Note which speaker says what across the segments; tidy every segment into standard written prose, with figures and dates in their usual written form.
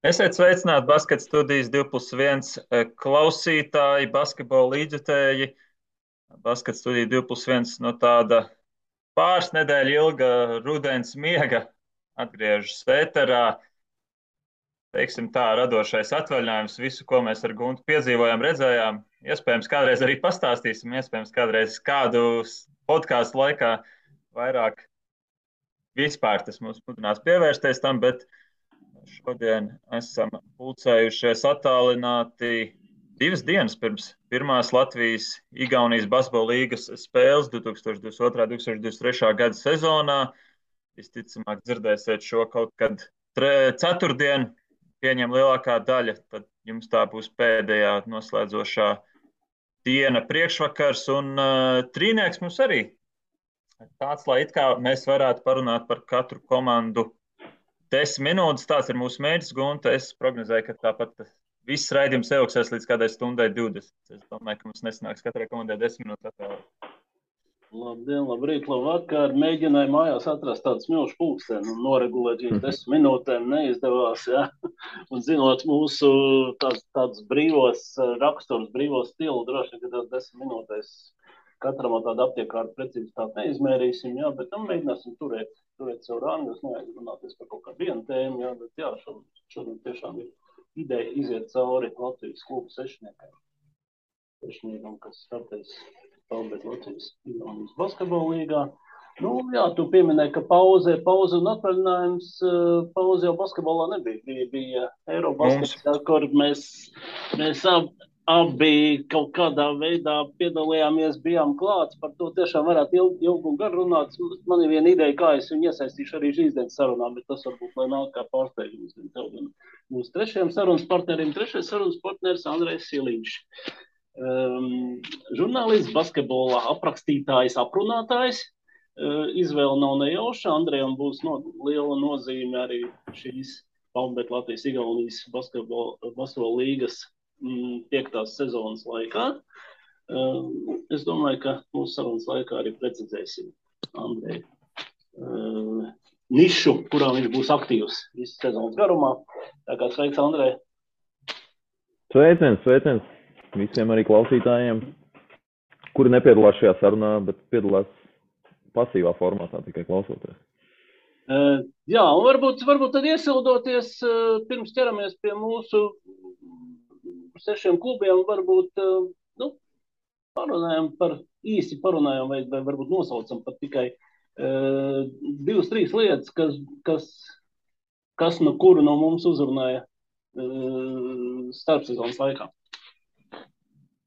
Speaker 1: Esiet sveicināti Basket studijas 2+1 klausītāji, basketbola līdzjutēji. Basket studija 2+1 no tāda pāris nedēļu ilga rudens miega atgriežas ēterā. Teiksim tā, radošais atvaļinājums, visu, ko mēs ar Guntu piedzīvojām, redzējām. Iespējams, kādreiz arī pastāstīsim, iespējams, kādreiz kādu podkāstu laikā vairāk vispār tas mums mudinās pievērsties tam, bet šodien esam pulcējušies attālināti 2 dienas pirms pirmās Latvijas-Igaunijas basketbola līgas spēles 2022.–2023. gada sezonā. Visticamāk, dzirdēsiet šo kaut kad ceturtdien, pieņem lielākā daļa, tad jums tā būs pēdējā noslēdzošā diena priekšvakars, un trīnieks mums arī tāds, lai it kā mēs varētu parunāt par katru komandu 10 minūtes. Tāds ir mūsu mērķis, Gunta. Es prognozēju, ka tāpat viss raidījums ilgsies līdz kādai stundai 20. Es domāju, ka mums nesanāks katrai komandai 10 minūtes atvēlēt.
Speaker 2: Labdien, labrīt, labvakar. Mēģināju mājās atrast tādu smilšu pulksteni un noregulēt šīs 10 minūtēm. Neizdevās, ja. Un zinot mūsu tādus brīvos raksturus, brīvos stilu, droši vien, ka tās 10 minūtēs katram tādu aptiekārtu precizitāti neizmērīsim, jā, bet mēģināsim turēt savu rangu, neaizrunāties par kaut kādu vienu tēmu, jā, bet jā, šodien tiešām ir ideja iziet cauri Latvijas klubu sešniekam, kas startēs Talbēt Latvijas-Igaunijas basketbola līgā. Nu, jā, tu pieminēji, ka pauze un atvaļinājums, pauze jau basketbolā nebija, bija Eirobaskets, kur mēs abi kaut kādā veidā piedalījāmies, bijām klāts, par to tiešām varētu ilgi un gar runāt. Man ir viena ideja, kā es viņu iesaistīšu arī šīs dienas sarunā, bet tas varbūt, lai nāk kā pārsteigums mūsu trešajam sarunas partnerim. Trešais sarunas partneris Andrejs Siliņš. Žurnālists, basketbolā aprakstītājs, aprunātājs. Izvēle nav nejauša. Andrejam būs liela nozīme arī šīs Talbēt Latvijas-Igaunijas basketbola līgas 5. sezonas laikā. Es domāju, ka mūsu sarunas laikā arī precizēsim Andreju nišu, kurā viņš būs aktīvs visu sezonas garumā. Tā kā sveiks, Andrej!
Speaker 3: Sveiciens visiem arī klausītājiem, kuri nepiedalās šajā sarunā, bet piedalās pasīvā formātā, tikai klausoties.
Speaker 2: Jā, un varbūt tad iesildoties, pirms ķeramies pie mūsu 6 klubiem, varbūt īsi parunājam vai varbūt nosaucam pat tikai 2-3 lietas, kas no kuru no mums uzrunāja starpsezonas laikā.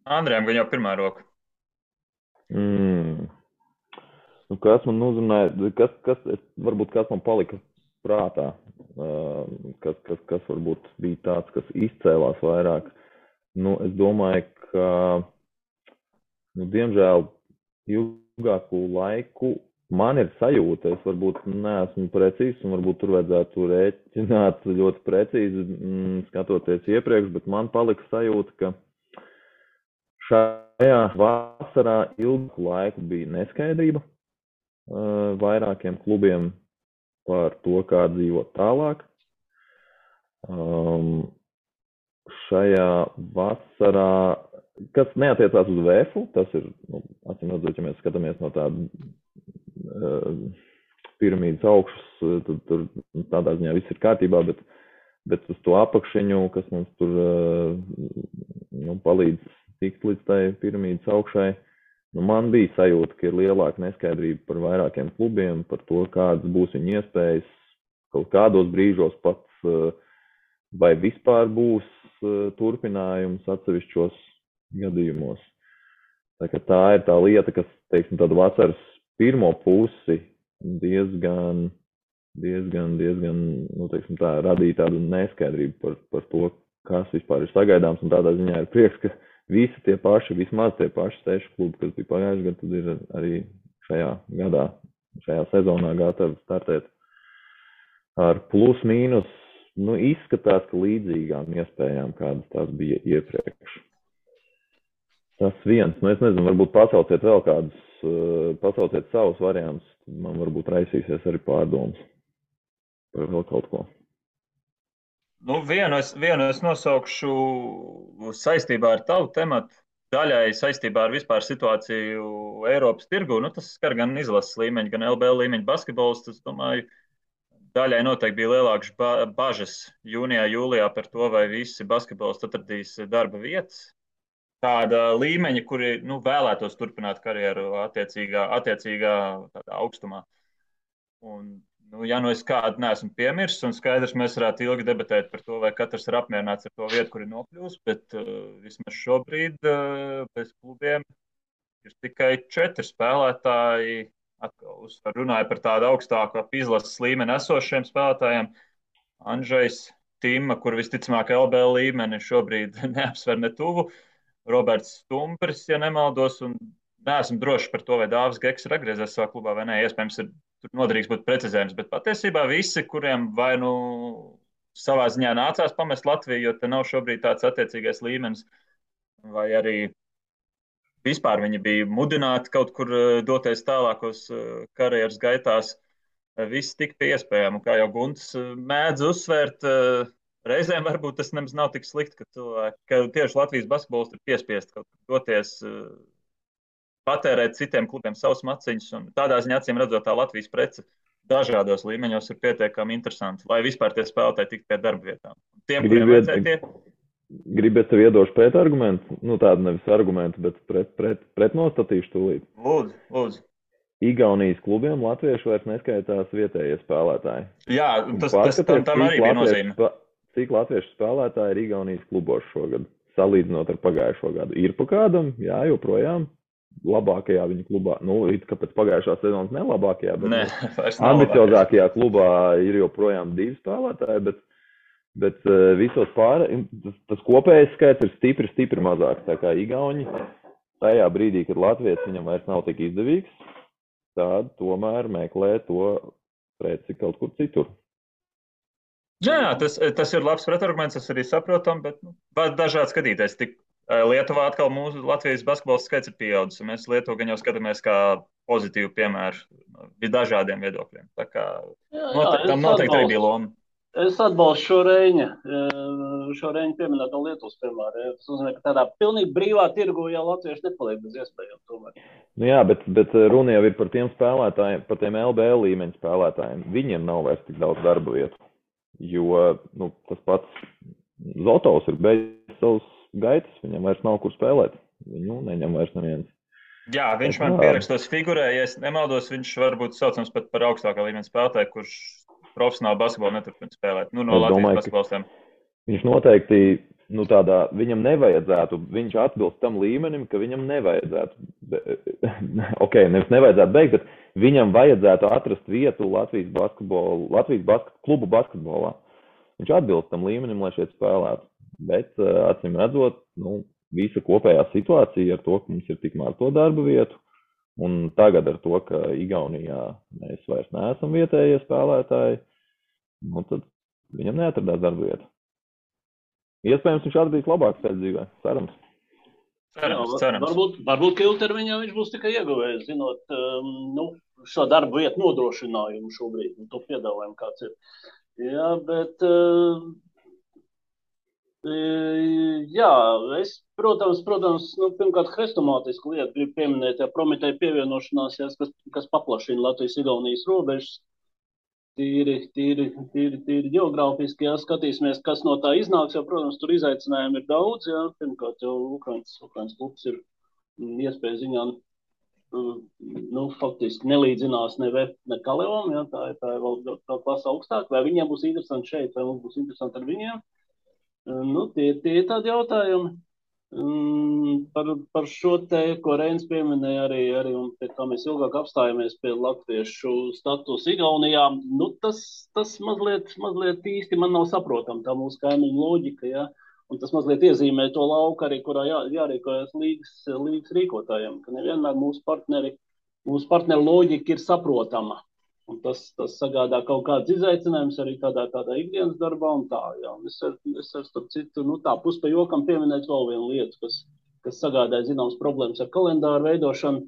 Speaker 1: Andrejam, gan jau pirmā roka.
Speaker 3: Kas man uzrunāja, varbūt kas man palika prātā, kas varbūt bija tāds, kas izcēlās vairāk. Es domāju, ka, diemžēl, ilgāku laiku man ir sajūta, es varbūt neesmu precīzs, un varbūt tur vajadzētu rēķināt ļoti precīzi, skatoties iepriekš, bet man palika sajūta, ka šajā vasarā ilgāku laiku bija neskaidrība vairākiem klubiem par to, kā dzīvot tālāk. Šajā vasarā, kas neatiecās uz VF, tas ir, acīm redzot, ja mēs skatāmies no tāda piramīdas augšas, tad tur tādā ziņā viss ir kārtībā, bet uz to apakšiņu, kas mums tur palīdz tikt līdz tai piramīdas augšai, man bija sajūta, ka ir lielāka neskaidrība par vairākiem klubiem, par to, kādas būs viņu iespējas, kaut kādos brīžos pats, vai vispār būs turpinājums atsevišķos gadījumos. Tā ir tā lieta, kas, teiksim, tādu vasaras pirmo pusi diezgan, teiksim tā, radīja tādu neskaidrību par to, kas vispār ir sagaidāms, un tādā ziņā ir prieks, ka visi tie paši, vismaz tie paši 6 klubi, kas bija pagājuši gadu, tad ir arī šajā gadā, šajā sezonā gatavi startēt ar plus mīnus. Izskatās, ka līdzīgām iespējām, kādas tās bija iepriekš. Tas viens. Es nezinu, varbūt pasauciet vēl kādus, pasauciet savus variantus, man varbūt raisīsies arī pārdomas par vēl kaut ko.
Speaker 1: Vienu es nosaukšu saistībā ar tavu tematu, daļai saistībā ar vispār situāciju Eiropas tirgu. Tas skar gan izlases līmeņa, gan LBL līmeņa basketbols. Es domāju, daļai noteikti bija lielākas bažas jūnijā, jūlijā par to, vai visi basketbolisti atradīs darba vietas. Tāda līmeņa, kuri vēlētos turpināt karjeru attiecīgā tādā augstumā. Un, ja es kādu neesmu piemirsis, un skaidrs, mēs varētu ilgi debatēt par to, vai katrs ir apmierināts ar to vietu, kur ir nokļūst, bet vismaz šobrīd bez klubiem ir tikai 4 spēlētāji. Atkal runāju par tādu augstāku izlases līmeni esošiem spēlētājiem. Andžejs Tima, kur visticamāk LBL līmeni šobrīd neapsver ne tuvu. Roberts Stumbris, ja nemaldos, un neesmu drošs par to, vai Dāvis Geks ir atgriezies savā klubā vai nē. Iespējams, tur noderīgs būt precizējums, bet patiesībā visi, kuriem vai savā ziņā nācās pamest Latviju, jo te nav šobrīd tāds attiecīgais līmenis, vai arī vispār viņi bija mudināti kaut kur doties tālākos karjeras gaitās, viss tik pie iespējām. Un kā jau Gunts mēdz uzsvērt, reizēm varbūt tas nemaz nav tik slikti, ka tieši Latvijas basketbolisti ir piespiesti kaut kur doties, patērēt citiem klubiem savus maciņus. Un tādā ziņā, acīm redzot, tā Latvijas prece dažādos līmeņos ir pietiekami interesanti, lai vispār tie spēlētāji tiktu pie darba vietām. Tiem, kuriem vajadzēja tie...
Speaker 3: Gribiet tev iedošu pret argumentu? Tādu nevis argumentu, bet pretnostatīšu tūlīt.
Speaker 1: Lūdzu.
Speaker 3: Igaunijas klubiem latvieši vairs neskaitās vietējie spēlētāji.
Speaker 1: Jā, tam arī bija nozīme.
Speaker 3: Cik latviešu spēlētāji ir Igaunijas klubos šogad, salīdzinot ar pagājušo gadu? Ir pa kādam? Jā, joprojām. Labākajā viņa klubā, it kā pēc pagājušās sezonas nelabākajā, bet ambiciozākajā klubā ir joprojām 2 spēlētāji, bet visos tas kopējais skaits ir stipri mazāks. Tā kā Igauni tajā brīdī, kad Latvijas viņam vairs nav tik izdevīgs, tad tomēr meklē to preci kaut kur citur.
Speaker 1: Jā, tas ir labs pretarguments, tas arī saprotam, bet dažādi skatīties. Lietuvā atkal mūsu Latvijas basketbols skaits ir pieaudzis, un mēs Lietuvu gan jau skatāmies kā pozitīvu piemēru dažādiem viedokļiem. Tā kā tam noteikti arī bija loma.
Speaker 2: Es atbalstu šo Reņa pieminēto Lietuvas piemēru. Tas nozīmē, ka tādā pilnīgi brīvā tirgu jau latvieši nepaliek bez iespējām tomēr.
Speaker 3: Jā, bet runa jau ir par tiem spēlētājiem, par tiem LBL līmeņa spēlētājiem. Viņiem nav vairs tik daudz darba vietu, jo tas pats Zotovs ir beidzis savus gaitas, viņam vairs nav kur spēlēt. Viņu neņem vairs neviens.
Speaker 1: Jā, viņš man pierakstos figurē, ja es nemaldos, viņš varbūt saucams pat par augstākā līmeņa spēlētāju, kurš profesionāli basketbolu neturpina spēlēt. No Latvijas basketbolistiem.
Speaker 3: Viņš noteikti, viņam nevajadzētu, viņš atbilst tam līmenim, ka viņam nevajadzētu, nevis nevajadzētu beigt, bet viņam vajadzētu atrast vietu Latvijas klubu basketbolā. Viņš atbilst tam līmenim, lai šeit spēlētu. Bet, acīm redzot, visa kopējā situācija ar to, ka mums ir tik maz to darba vietu, un tagad ar to, ka Igaunijā mēs vairs neesam vietējie spēlētāji, tad viņam neatradās darba vietu. Iespējams, viņš atradīs labāku ceļu dzīvē. Cerams.
Speaker 2: Varbūt, ka ilgtermiņā viņš būs tikai ieguvējis, zinot, šo darbu vietu nodrošinājumu šobrīd, to piedāvājumu kāds ir. Jā, bet... Jā, es, protams, pirmkārt, hrestomātisku lietu gribu pieminēt, Prometēja pievienošanās, kas paplašina Latvijas-Igaunijas robežas. Tīri ģeogrāfiski, skatīsimies, kas no tā iznāks, jo, protams, tur izaicinājumi ir daudz, pirmkārt, jau Ukrainas klubs ir iespēja ziņā, faktiski nelīdzinās ne VF, ne Kalevom, tā ir vēl klasa augstāk, vai viņiem būs interesanti šeit, vai mums būs interesanti ar viņiem. Tie ir tādi jautājumi par šo te, ko Reins pieminēja arī un pie kā mēs ilgāk apstājamies pie latviešu status Igaunijā. Tas mazliet īsti man nav saprotam, tā mūsu kaimiņu loģika, un tas mazliet iezīmē to lauku arī, kurā jārīkojas līgas rīkotājiem, ka nevienmēr mūsu partneru loģika ir saprotama. Un tas sagādā kaut kāds izaicinājums arī tādā ikdienas darbā un tā, Es ar starp citu, tā pus pa jokam pieminēt vēl vienu lietu, kas sagādāja zināmas problēmas ar kalendāru veidošanu.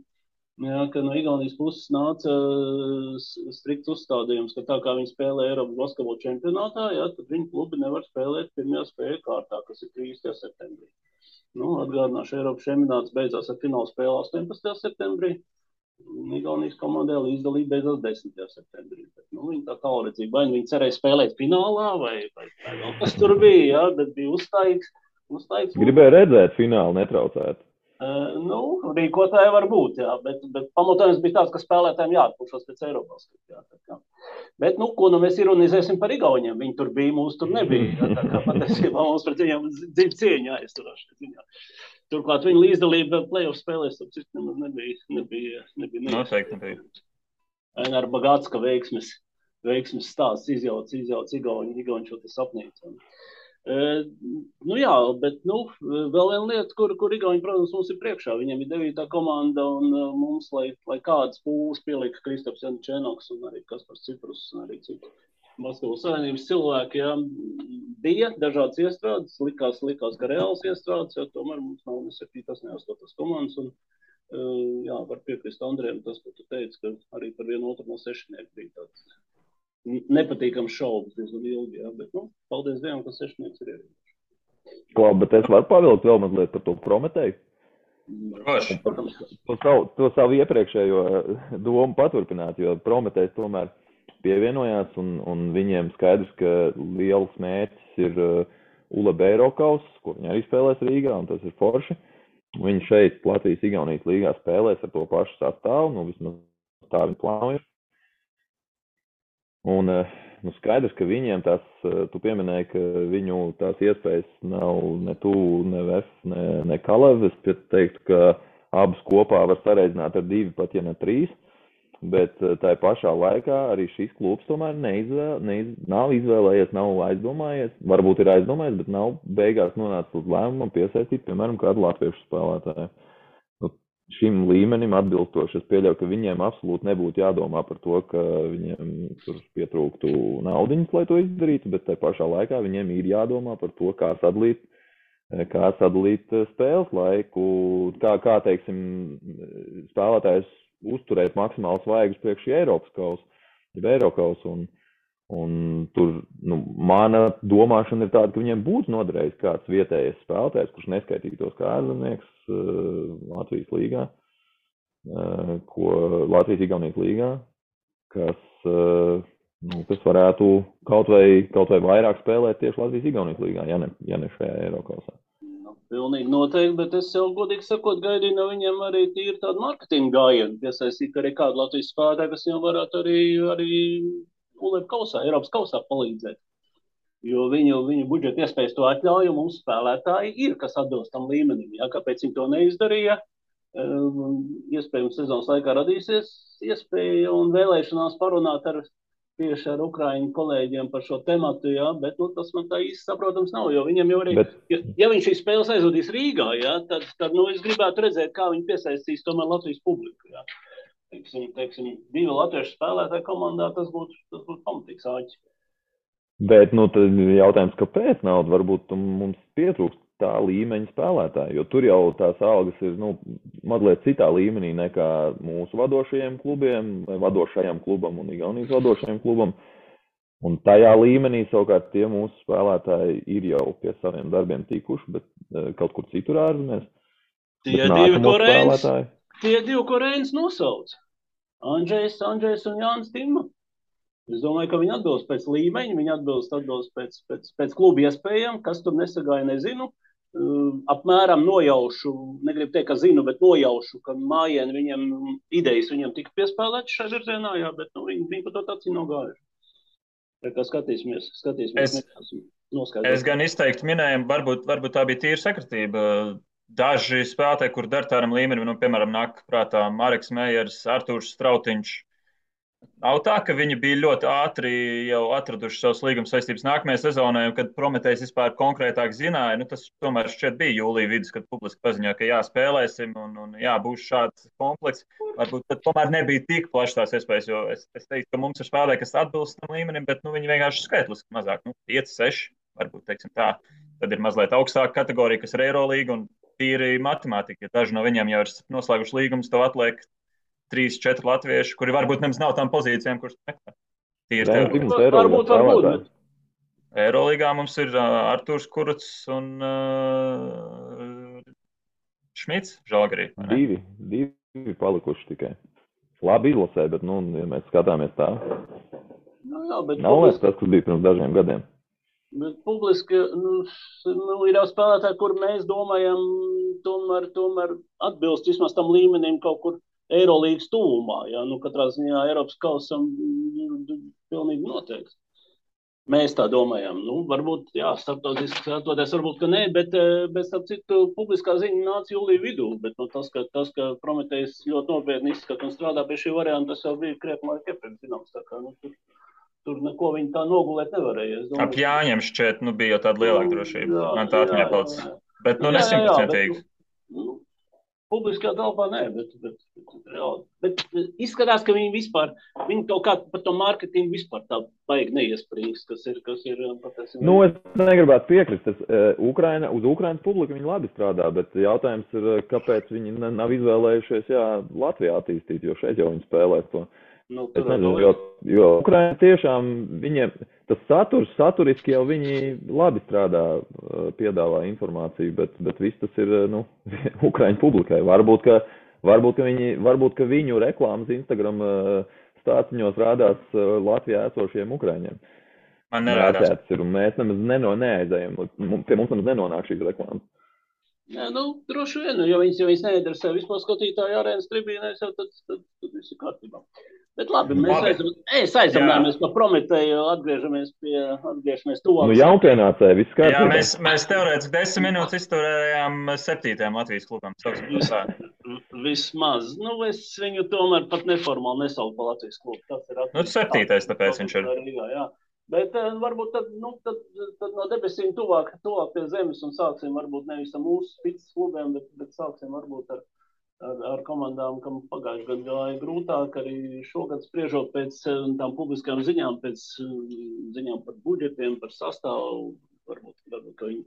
Speaker 2: Jā, ka no Igaunijas puses nāca strikts uzstādījums, ka tā kā viņi spēlē Eiropas basketbola čempionātā, jā, tad viņu klubi nevar spēlēt pirmajā spēļu kārtā, kas ir 30. septembrī. Nu, atgādināšu, Eiropas čempionāts beidzās ar finālu spēli 18. septembrī. Igaunijas komandai līdzdalība beidzās 10. septembrī. Bet, nu, viņi tā tālredzība, vai viņi cerēja spēlēt finālā, vai vēl kas tur bija, jā, bet bija uzstājīgs.
Speaker 3: Gribēju redzēt finālu netraucēt.
Speaker 2: Nu, rīkotāji var būt, jā, bet pamatojums bija tāds, ka spēlētājiem jāatpūšas pēc Eiropas. Jā, bet, nu, ko nu mēs ironizēsim par Igauniem? Viņi tur bija, mūs tur nebija. Jā, tā kā patiesībā mums pret viņiem dzīvi cieņā aizturās. Turklāt viņa līdzdalība play-off spēlēs, tas nebija.
Speaker 1: Noteikti nebija.
Speaker 2: Ar Bagātska veiksmes stāsts izjauc Igauņu šo te sapnīcu. Nu jā, bet vēl viena lieta, kur Igauni, protams, mums ir priekšā. Viņiem ir 9. komanda un mums, lai kādas pūles pielika Kristaps Janučēnoks un arī Kaspars Ciprus un arī citi basketbola savienības cilvēki, jā, bija dažādas iestrādes, likās, ka reāls iestrādes, jo tomēr mums nav ne 7. ne 8. komandas un jā, var piekrist Andrejam tas, ko tu teici, ka arī par vienu otru no sešnieku bija tāds nepatīkams šaubas diezgan ilgi, jā, bet, paldies Dievam, ka sešnieks ir ierījuši.
Speaker 3: Labi, bet es varu pavilkt vēl mazliet par to Prometēju? To savu iepriekšējo domu paturpināt, jo Prometējs tomēr pievienojās un viņiem skaidrs, ka liels mērķis ir ULEB Eirokaus, ko viņi arī spēlēs Rīgā, un tas ir forši. Viņi šeit Latvijas-Igaunijas līgā spēlēs ar to pašu sastāvu, vismaz tā viņi plāno ir. Un skaidrs, ka viņiem tās, tu pieminēji, ka viņu tās iespējas nav ne tuvu, ne VF, ne Kalev. Es teiktu, ka abas kopā var sareizināt ar 2, pat ja ne 3. Bet tā pašā laikā arī šis klubs tomēr nav izvēlējies, nav aizdomājies. Varbūt ir aizdomājies, bet nav beigās nonācis uz lēmumu piesaistīt, piemēram, kādu latviešu spēlētāju. Šim līmenim atbilstoši, es pieļauju, ka viņiem absolūti nebūtu jādomā par to, ka viņiem tur pietrūktu naudiņas, lai to izdarītu, bet tai pašā laikā viņiem ir jādomā par to, kā sadalīt spēles laiku, kā teiksim, spēlētājs uzturēt maksimāli svaigus priekš Eiropas kausa, un tur, mana domāšana ir tāda, ka viņiem būtu noderējis kāds vietējais spēlētājs, kurš neskaitītos kā ārzemnieks Latvijas līgā, Latvijas-Igaunijas līgā, kas varētu kaut vai vairāk spēlēt tieši Latvijas-Igaunijas līgā, ja ne šajā Eirokausā.
Speaker 2: Pilnīgi noteikti, bet es jau godīgi sakot gaidīju no viņiem arī tīri tādu marketingu gājienu, piesaistīt arī kādu Latvijas spēlētāju, kas viņam varētu arī ULEB kausā, Eiropas kausā palīdzēt. Jo viņu budžeta iespējas to atļauj, un mums spēlētāji ir, kas atbilst tam līmenim. Ja? Kāpēc viņi to neizdarīja? Iespējams, sezonas laikā radīsies iespēja un vēlēšanās parunāt tieši ar Ukraiņu kolēģiem par šo tematu, ja? Bet tas man tā īsti saprotams nav, jo viņam jau arī, ja viņš šīs spēles aizvadīs Rīgā, ja? tad es gribētu redzēt, kā viņi piesaistīs tomēr Latvijas publiku. Ja? Teiksim, 2 latviešu spēlētāju komandā, tas būtu pamatīgs āķis.
Speaker 3: Bet, tad jautājums, kāpēc nauda? Varbūt mums pietrūkst tā līmeņa spēlētāji, jo tur jau tās algas ir, mazliet citā līmenī nekā mūsu vadošajiem klubiem, vai vadošajam klubam un Igaunijas vadošajam klubam. Un tajā līmenī savukārt tie mūsu spēlētāji ir jau pie saviem darbiem tikuši, bet kaut kur citur ārzemēs.
Speaker 2: Tie 2, ko Reinis nosauc. Andžejs un Jānis Timma. Es domāju, ka viņi atbilst pēc līmeņa, viņi atbilst pēc kluba iespējām, kas tur nesagāja, nezinu. Apmēram nojaušu, negribu teikt, ka zinu, bet nojaušu, ka mājieni viņiem idejas viņiem tika piespēlētas šajā virzienā, jā, bet viņi par to tāds nav gājuši. Tā kā skatīsimies.
Speaker 1: Es gan izteikti minējumu, varbūt tā bija tīra sakritība. Daži spēlētāji, kur dar tādam līmenim, piemēram, nāk prātā Mareks Mejers, Artūrs Strautiņš. Nav tā, ka viņi bija ļoti ātri jau atraduši savus līguma saistības nākamajai sezonai, un kad Prometējs vispār konkrētāk zināja, tas tomēr šķiet bija jūlija vidus, kad publiski paziņoja, ka jā, spēlēsim un jā, būs šāds komplekss. Varbūt tad tomēr nebija tik plašs tās iespējas, jo es teiktu, ka mums ir spēlētāji, kas atbilst tam līmenim, bet viņi vienkārši skaitliski mazāk, 5, 6, varbūt, teiksim tā. Tad ir mazliet augstāka kategorija, kas ir Eirolīga un tīri matemātika. Ja daži no viņiem jau ir noslēguši līgumus, tev atliek 3-4 latvieši, kuri varbūt nemaz nav tām pozīcijām, kuras meklē. Tīri
Speaker 3: Cik
Speaker 1: teorētiski.
Speaker 3: mums Eirolīgā
Speaker 2: Varbūt,
Speaker 3: spēlētāji?
Speaker 2: bet
Speaker 1: Eirolīgā mums ir Artūrs Kurucs un Šmits Žalgarī, vai ne?
Speaker 3: Divi palikuši tikai. Labi izlasē, bet, nu, ja mēs skatāmies tā,
Speaker 2: jā, bet
Speaker 3: nav vairs tas, kas bija pirms dažiem gadiem.
Speaker 2: Bet publiski, ir jau spēlētāji, kur mēs domājam, tomēr atbilst vismaz tam līmenim kaut kur Eirolīgas tuvumā. Ja? Katrā ziņā Eiropas kausam pilnīgi noteikti. Mēs tā domājam. Varbūt, jā, starptautiski skatoties, varbūt, ka nē, bet starp citu, publiskā ziņa nāca jūlija vidū, bet tas, ka Prometejs ļoti nopietni izskata un strādā pie šī varianta, tas jau bija krietni laika iepriekš zināms. Tā kā, tur neko viņi tā nogulēt nevarēja.
Speaker 1: Ap Jāņiem šķiet, bija jau tāda lielāka drošība. Man tā atmiņā palicis. Bet, ne 100%.
Speaker 2: Publiskajā telpā nē, bet izskatās, ka viņi kaut kā par to mārketingu vispār tā baigi neiesprings, kas ir patiesībā.
Speaker 3: Es negribētu piekrist. Uz Ukrainas publiku viņi labi strādā, bet jautājums ir, kāpēc viņi nav izvēlējušies Latvijā attīstīt, jo šeit jau viņi spēlē to. Es nezinu, jo Ukraina tiešām viņiem, tas saturiski jau viņi labi strādā, piedāvā informāciju, bet viss tas ir, Ukraiņu publikai. Varbūt, ka viņu reklāmas Instagram stāciņos rādās Latvijā esošiem Ukraiņiem.
Speaker 1: Man nerādās.
Speaker 3: Mēs nemaz neaizējam, pie mums nemaz nenonāk šīs reklāmas.
Speaker 2: Jā, droši vien, jo viņas neinteresē vispār skatītāju arēnas tribīnēs, tad viss ir kārtībā. Bet labi, mēs aizdomājamies par Prometeju, atgriežamies tuvāk.
Speaker 3: Jaunpienācēji, viss kārtībā.
Speaker 1: Jā, mēs teorētiski 10 minūtes izturējām 7. Latvijas klubam.
Speaker 2: Vismaz. Es viņu tomēr pat neformāli nesaucu par Latvijas klubu.
Speaker 1: 7. tāpēc viņš ir.
Speaker 2: Jā. Bet varbūt tad no debesīm tuvāk pie zemes un sāksim varbūt nevis ar mūsu spicas klubiem, bet sāksim varbūt ar komandām, kam pagājuši gadu gāja grūtāk, arī šogad spriežot pēc tām publiskām ziņām, pēc ziņām par budžetiem, par sastāvu, varbūt ka viņi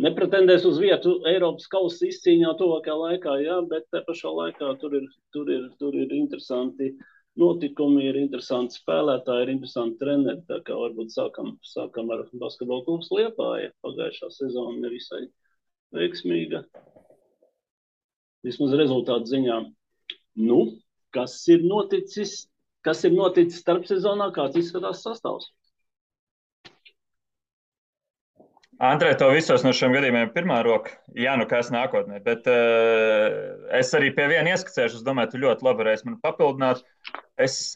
Speaker 2: nepretendēs uz vietu Eiropas kausa izcīņā tuvākajā laikā, jā, bet te pašā laikā tur ir interesanti notikumi, ir interesanti spēlētāji, ir interesanti treneri, tā kā varbūt sākam ar Basketbola klubs Liepāja. Pagājušā sezona nevisai veiksmīga. Vismaz rezultātu ziņā. Kas ir noticis starpsezonā, kāds izskatās sastāvs?
Speaker 1: Andrej, to visos no šiem gadījumiem pirmā roka. Jā, kas nākotnē. Bet es arī pie viena ieskicēšu. Es domāju, tu ļoti labi varēsi man papildināt. Es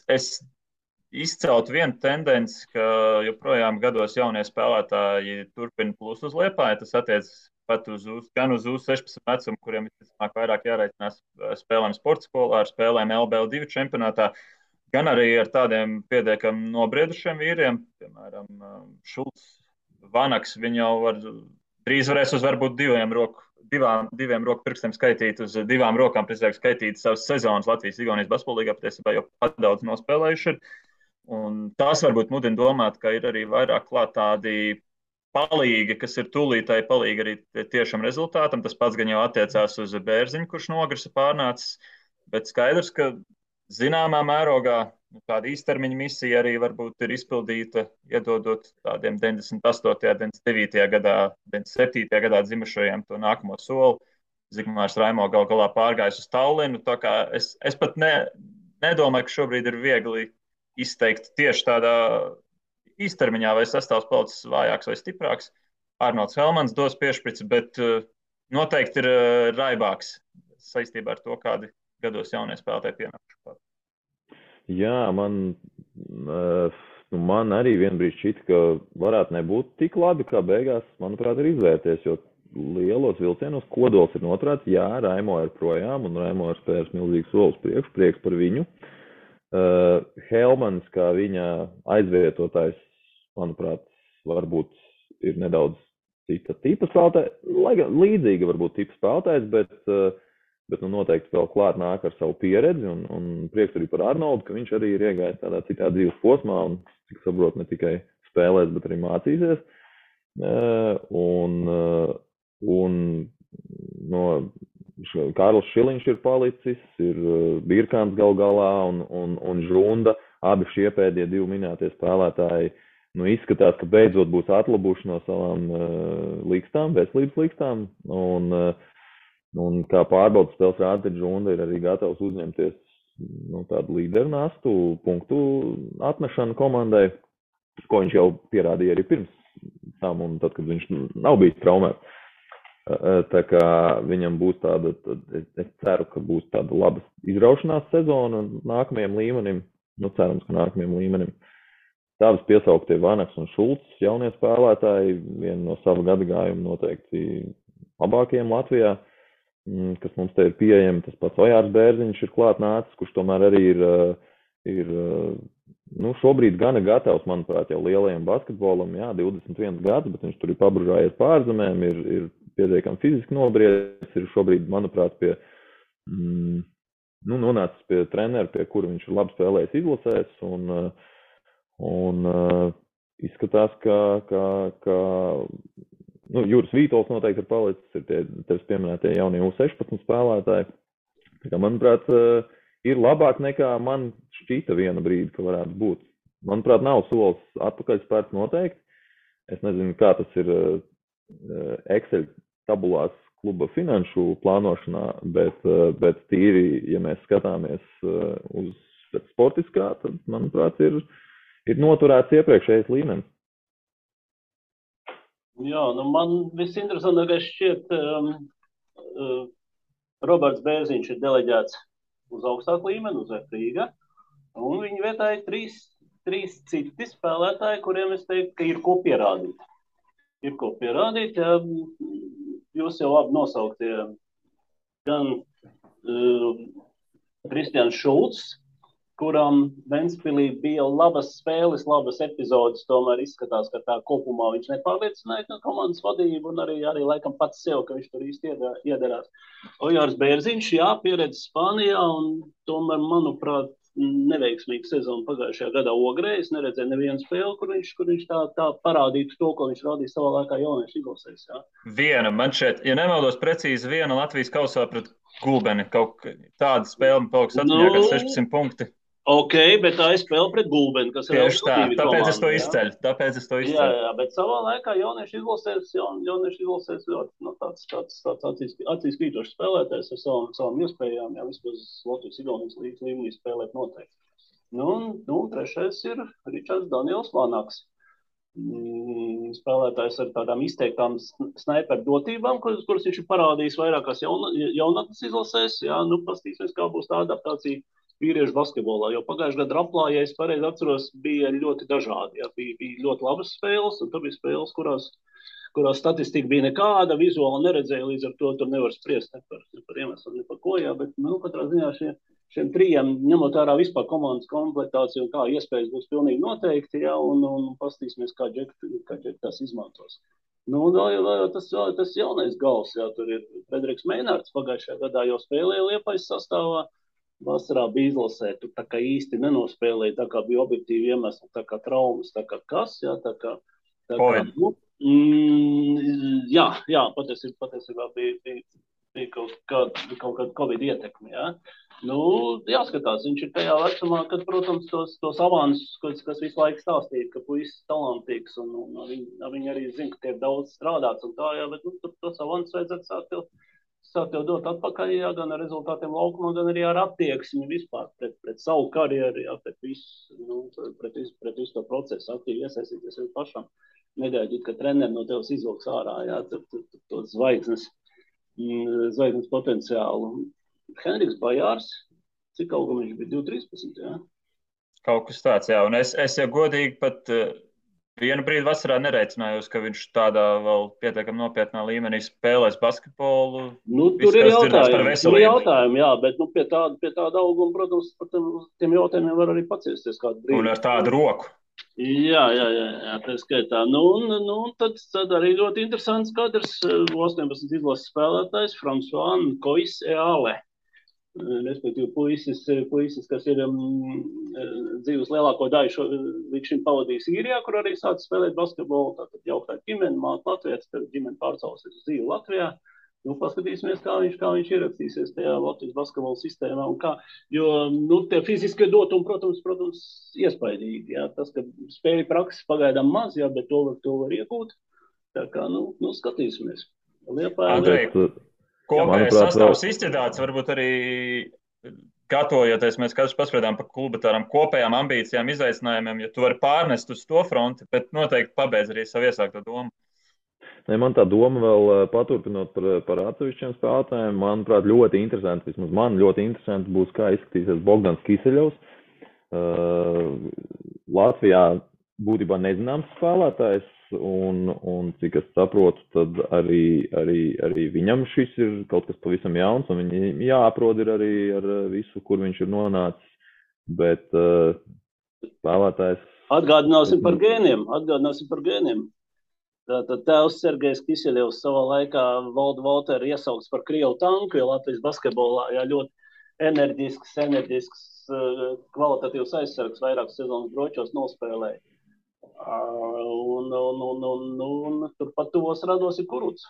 Speaker 1: izceltu vienu tendenci, ka joprojām gados jaunie spēlētāji turpina plus uz Liepāju. Tas attiec pat gan uz U16 vecumu, kuriem visticamāk vairāk jāreicinās spēlēm sporta skolā, ar spēlēm LBL2 čempionātā, gan arī ar tādiem pietiekami nobriedušiem vīriem, piemēram, Šulcs, Vanaks. Viņi jau drīz varēs uz varbūt diviem roku pirkstiem skaitīt, uz 2 rokām precīzāk skaitīt savas sezonas Latvijas-Igaunijas basketbolīgā, patiesībā jau pat daudz nospēlējuši ir. Un tās varbūt mudina domāt, ka ir arī vairāk klāt tādi palīgi, kas ir tūlītēji palīgi arī tiešam rezultātam. Tas pats gan jau attiecās uz Bērziņu, kurš nogrisa pārnācis, bet skaidrs, ka zināmā mērogā tāda īstermiņa misija arī varbūt ir izpildīta, iedodot tādiem 98., 99. gadā, 97. gadā dzimušajiem to nākamo soli. Zigmārs Raimo gal galā pārgājis uz Tallinu, tā kā es pat nedomāju, ka šobrīd ir viegli izteikt tieši tādā īstermiņā, vai sastāvs palicis vājāks vai stiprāks. Arnolds Helmans dos piešprici, bet noteikti ir raibāks saistībā ar to, kādi gados jaunie spēlētāji pienākuši.
Speaker 3: Jā, man arī vienbrīd šķita, ka varētu nebūt tik labi, kā beigās, manuprāt, ir izvērties, jo lielos vilcienos kodols ir noturēts. Jā, Raimo ir projām, un Raimo ir spērs milzīgs solis prieks par viņu. Helmans, kā viņa aizvietotājs, manuprāt, varbūt ir nedaudz cita tipa spēlētājs, lai gan līdzīga varbūt tipa spēlētājs, bet noteikti vēl klāt nāk ar savu pieredzi, un prieks arī par Arnoldu, ka viņš arī ir iegājis tādā citā dzīves posmā, un, cik saprot, ne tikai spēlēs, bet arī mācīsies. Un Kārlis Šiliņš ir palicis, ir Birkāns gal galā un Žunda. Abi šie pēdējie 2 minētie spēlētāji izskatās, ka beidzot būs atlabuši no savām līkstām, veselības līkstām. Un kā pārbaudas spēles rāda, tad Žunda ir arī gatavs uzņemties tādu līderu nastu, punktu atmešanu komandai, ko viņš jau pierādīja arī pirms tam, un tad, kad viņš nav bijis traumēts. Tā kā viņam būs tāda, es ceru, ka būs tāda laba izraušanās sezona nākamajam līmenim, cerams, ka nākamajam līmenim. Tādas piesauktie Vanaks un Šulcs, jaunie spēlētāji, viena no sava gadagājuma noteikti labākajiem Latvijā, kas mums te ir pieejami. Tas pats Ojārs Bērziņš ir klāt nācis, kurš tomēr arī ir šobrīd gana gatavs, manuprāt, jau lielajam basketbolam, 21 gads, bet viņš tur ir pabružājies pārzemēm, ir pietiekami fiziski nobriedis, ir šobrīd, manuprāt, nonācis pie trenera, pie kura viņš ir labi spēlējis izlasēs, un izskatās, ka Juris Vītols noteikti ir palicis, ir tevis pieminētie jaunie U16 spēlētāji. Tā kā, manuprāt, ir labāk nekā man šķita viena brīdi, ka varētu būt. Manuprāt, nav solis atpakaļ spērts noteikti. Es nezinu, kā tas ir Excel tabulās kluba finanšu plānošanā, bet tīri, ja mēs skatāmies uz sportiskā, tad, manuprāt, ir noturēts iepriekšējais līmenis.
Speaker 2: Jā, man visinteresantākais šķiet Roberts Bērziņš ir deleģēts uz augstāku līmeni, uz Rīga, un viņa vietā ir trīs citi spēlētāji, kuriem es teiktu, ka ir ko pierādīt. Ir ko pierādīt, ja jūs jau labi nosauktie gan Kristians Šulcs, kuram Ventspilī bija labas spēles, labas epizodes, tomēr izskatās, ka tā kopumā viņš nepārliecināja komandas vadību un arī laikam pats sev, ka viņš tur īsti iedarās. Ojārs Bērziņš, pieredze Spānijā un tomēr, manuprāt, neveiksmīga sezona pagājušajā gadā Ogrē. Es neredzēju nevienu spēli, kur viņš tā parādītu to, ko viņš rādīja savā laikā jauniešu izlasēs.
Speaker 1: Viena, man šeit, ja nemaldos precīzi, viena Latvijas kausā pret Gulbeni. Kaut tāda spēle man paliks atmiņā, kad 16 punkti.
Speaker 2: Ok, bet tā ir spēle pret Gulbeni, kas ir
Speaker 1: tieši tā, tāpēc es to izceļu.
Speaker 2: Jā, bet savā laikā jauniešu izlasēs tāds acīs krītošs spēlētājs ar savām iespējām, vismaz Latvijas-Igaunijas līmenī spēlēt noteikti. Trešais ir Ričards Daniels Vanaks. Spēlētājs ar tādām izteiktām snaiperu dotībām, kuras viņš ir parādījis vairākās jaunatnes izlasēs. Pastīsimies, kā būs tā adaptācija vīriešu basketbolā, jo pagājušajā gadā Raplā, ja es pareizi atceros, bija ļoti dažādi. Bija ļoti labas spēles, un tur bija spēles, kurās statistika bija nekāda, vizuāli neredzēja, līdz ar to tur nevar spriest ne par iemeslu, ne par ko, bet katrā ziņā šiem trijiem, ņemot ārā vispār komandas komplektāciju un kā iespējas būs pilnīgi noteikti, un pastīsimies, kā Džeki tās izmantos. Tas jaunais gals, tur ir Frederiks Meinārds, pagājušajā gadā jau spēlēja Liepājas sastāvā, vasarā bija izlasē, tur tā kā īsti nenospēlēja, tā kā bija objektīvi iemesli, tā kā traumas, tā kā kas, patiesībā bija kaut kāda Covid ietekme, jāskatās, viņš ir tajā vecumā, kad, protams, tos avansus, kas visu laiku stāstīja, ka puisis talantīgs, un viņi arī zina, ka tiek daudz strādāts un tā, bet tos avansus vajadzētu sākt jau dot atpakaļ, gan ar rezultātiem laukumā, gan arī ar attieksmi vispār pret savu karjeru, pret visu to procesu, aktīvi iesaistīties jau pašam. Negaidīt, ka treneri no tevis izvilks ārā, to zvaigznes potenciālu. Henriks Bajārs, cik augam viņš bija 2.13,
Speaker 1: Kaut kas tāds, un es jau godīgi pat vienu brīdi vasarā nereicinājos, ka viņš tādā vēl pietiekami nopietnā līmenī spēlēs basketbolu.
Speaker 2: Tur ir jautājumi, bet pie tāda auguma, protams, par tiem jautājumiem var arī paciesties kādu brīdi.
Speaker 1: Un ar tādu roku.
Speaker 2: Jā, tā skaitā. Tad arī ļoti interesants kadrs 18 izlases spēlētājs François Kois Eale. Respektīvi puisis, kas ir dzīves lielāko daļu līdz šim pavadījis Īrijā, kur arī sācis spēlēt basketbolu, tātad jauktā ģimene, māte Latvijas, tad ģimene pārcēlusies uz dzīvi Latvijā. Nu, paskatīsimies, kā viņš ierakstīsies tajā Latvijas basketbola sistēmā un kā, jo, nu, tie fiziskie dotumi, protams, iespaidīgi, jā, tas, ka spēļu prakses pagaidām maz, jā, bet to var iegūt, tā kā, nu, skatīsimies.
Speaker 1: Andrej, kopējais sastāvs izķedāts, varbūt arī gatavojoties, mēs katrs paspriedām par klubu tādām kopējām ambīcijām, izaicinājumiem, ja tu vari pārnest uz to fronti, bet noteikti pabeidz arī savu iesākto domu.
Speaker 3: Ne, man tā doma vēl paturpinot par atsevišķiem spēlētājiem, manuprāt, ļoti interesanti, vismaz man ļoti interesanti būs, kā izskatīsies Bogdans Kiseļovs. Latvijā būtībā nezināms spēlētājs, un cik es saprotu, tad arī viņam šis ir kaut kas pavisam jauns, un viņi jāaprod ir arī ar visu, kur viņš ir nonācis, bet spēlētājs...
Speaker 2: Atgādināsim par gēniem. Tātad tēvs Sergejs Kiseļovs savā laikā Valdu Valteru iesaukts par Krievu tanku, jo Latvijas basketbolā ļoti enerģisks, kvalitatīvs aizsargs vairākas sezonas bročos nospēlēja. Un turpat tuvos rados ir Kuruts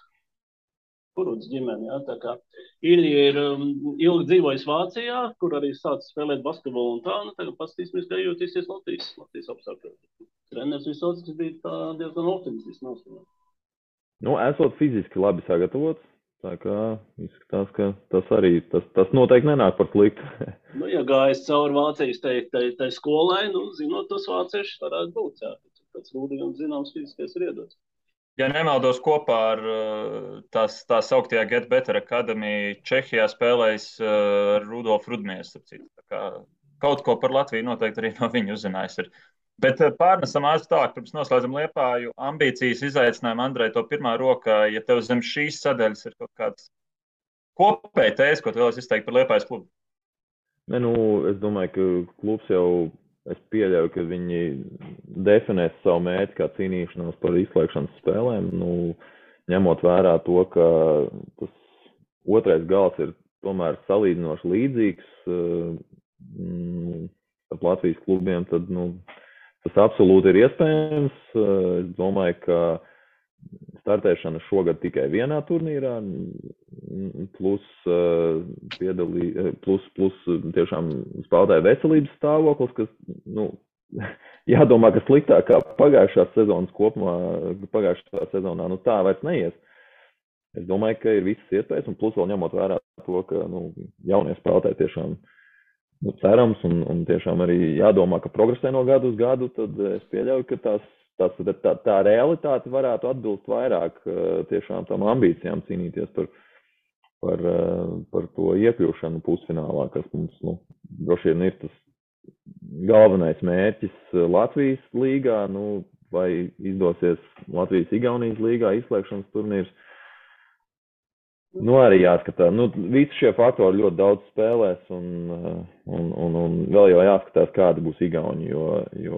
Speaker 2: ģimene, jā, tā kā Ilja ir ilgi dzīvojis Vācijā, kur arī sācis spēlēt basketbolu un tā, nu tagad paskatīsimies, kā jūtīsies Latvijas apstākļos. Treneris Visockis bija diezgan optimistiski noskaņots.
Speaker 3: Nu, esot fiziski labi sagatavots, tā kā izskatās, ka tas noteikti nenāk par sliktu.
Speaker 2: Nu, ja gājas cauri Vācijas tai skolai, nu, zinot, tas vāciešs varētu būt, jā. Tāds rūdījums zināms fiziskais ir iedots.
Speaker 1: Ja nemaldos, kopā ar tā sauktajā Get Better Academy Čehijā spēlējis Rudolfu Rudmies. Kaut ko par Latviju noteikti arī no viņa uzzinājis ir. Bet pārnesam ātri tālāk, pirms noslēdzam Liepāju. Ambīcijas, izaicinājumi, Andrej, to pirmā rokā, ja tev zem šīs sadaļas ir kaut kāds kopēji tēzes, ko tu vēlies izteikt par Liepājas klubu?
Speaker 3: Ne, nu, es domāju, ka klubs jau, es pieļauju, ka viņi definēs savu mērķi kā cīnīšanos par izslēgšanas spēlēm, nu, ņemot vērā to, ka tas otrais gals ir tomēr salīdzinoši līdzīgs ar Latvijas klubiem, tad, nu, tas absolūti ir iespējams. Es domāju, ka startēšana šogad tikai vienā turnīrā, plus tiešām spēlētāju veselības stāvoklis, kas, nu, jādomā, ka sliktāk kā pagājušā sezonā, nu, tā vairs neies. Es domāju, ka ir visas iespējas, un plus vēl ņemot vērā to, ka, nu, jaunie spēlētāji tiešām cerams un tiešām arī jādomā, ka progresē no gadu uz gadu, tad es pieļauju, ka tā realitāte varētu atbilst vairāk tiešām tam ambīcijām cīnīties par to iekļūšanu pusfinālā, kas mums, nu, droši vien ir tas galvenais mērķis Latvijas līgā, nu, vai izdosies Latvijas-Igaunijas līgā izslēgšanas turnīrs. Nu, arī jāskatās. Nu, visi šie faktori ļoti daudz spēlēs un vēl jau jāskatās, kādi būs Igauni, jo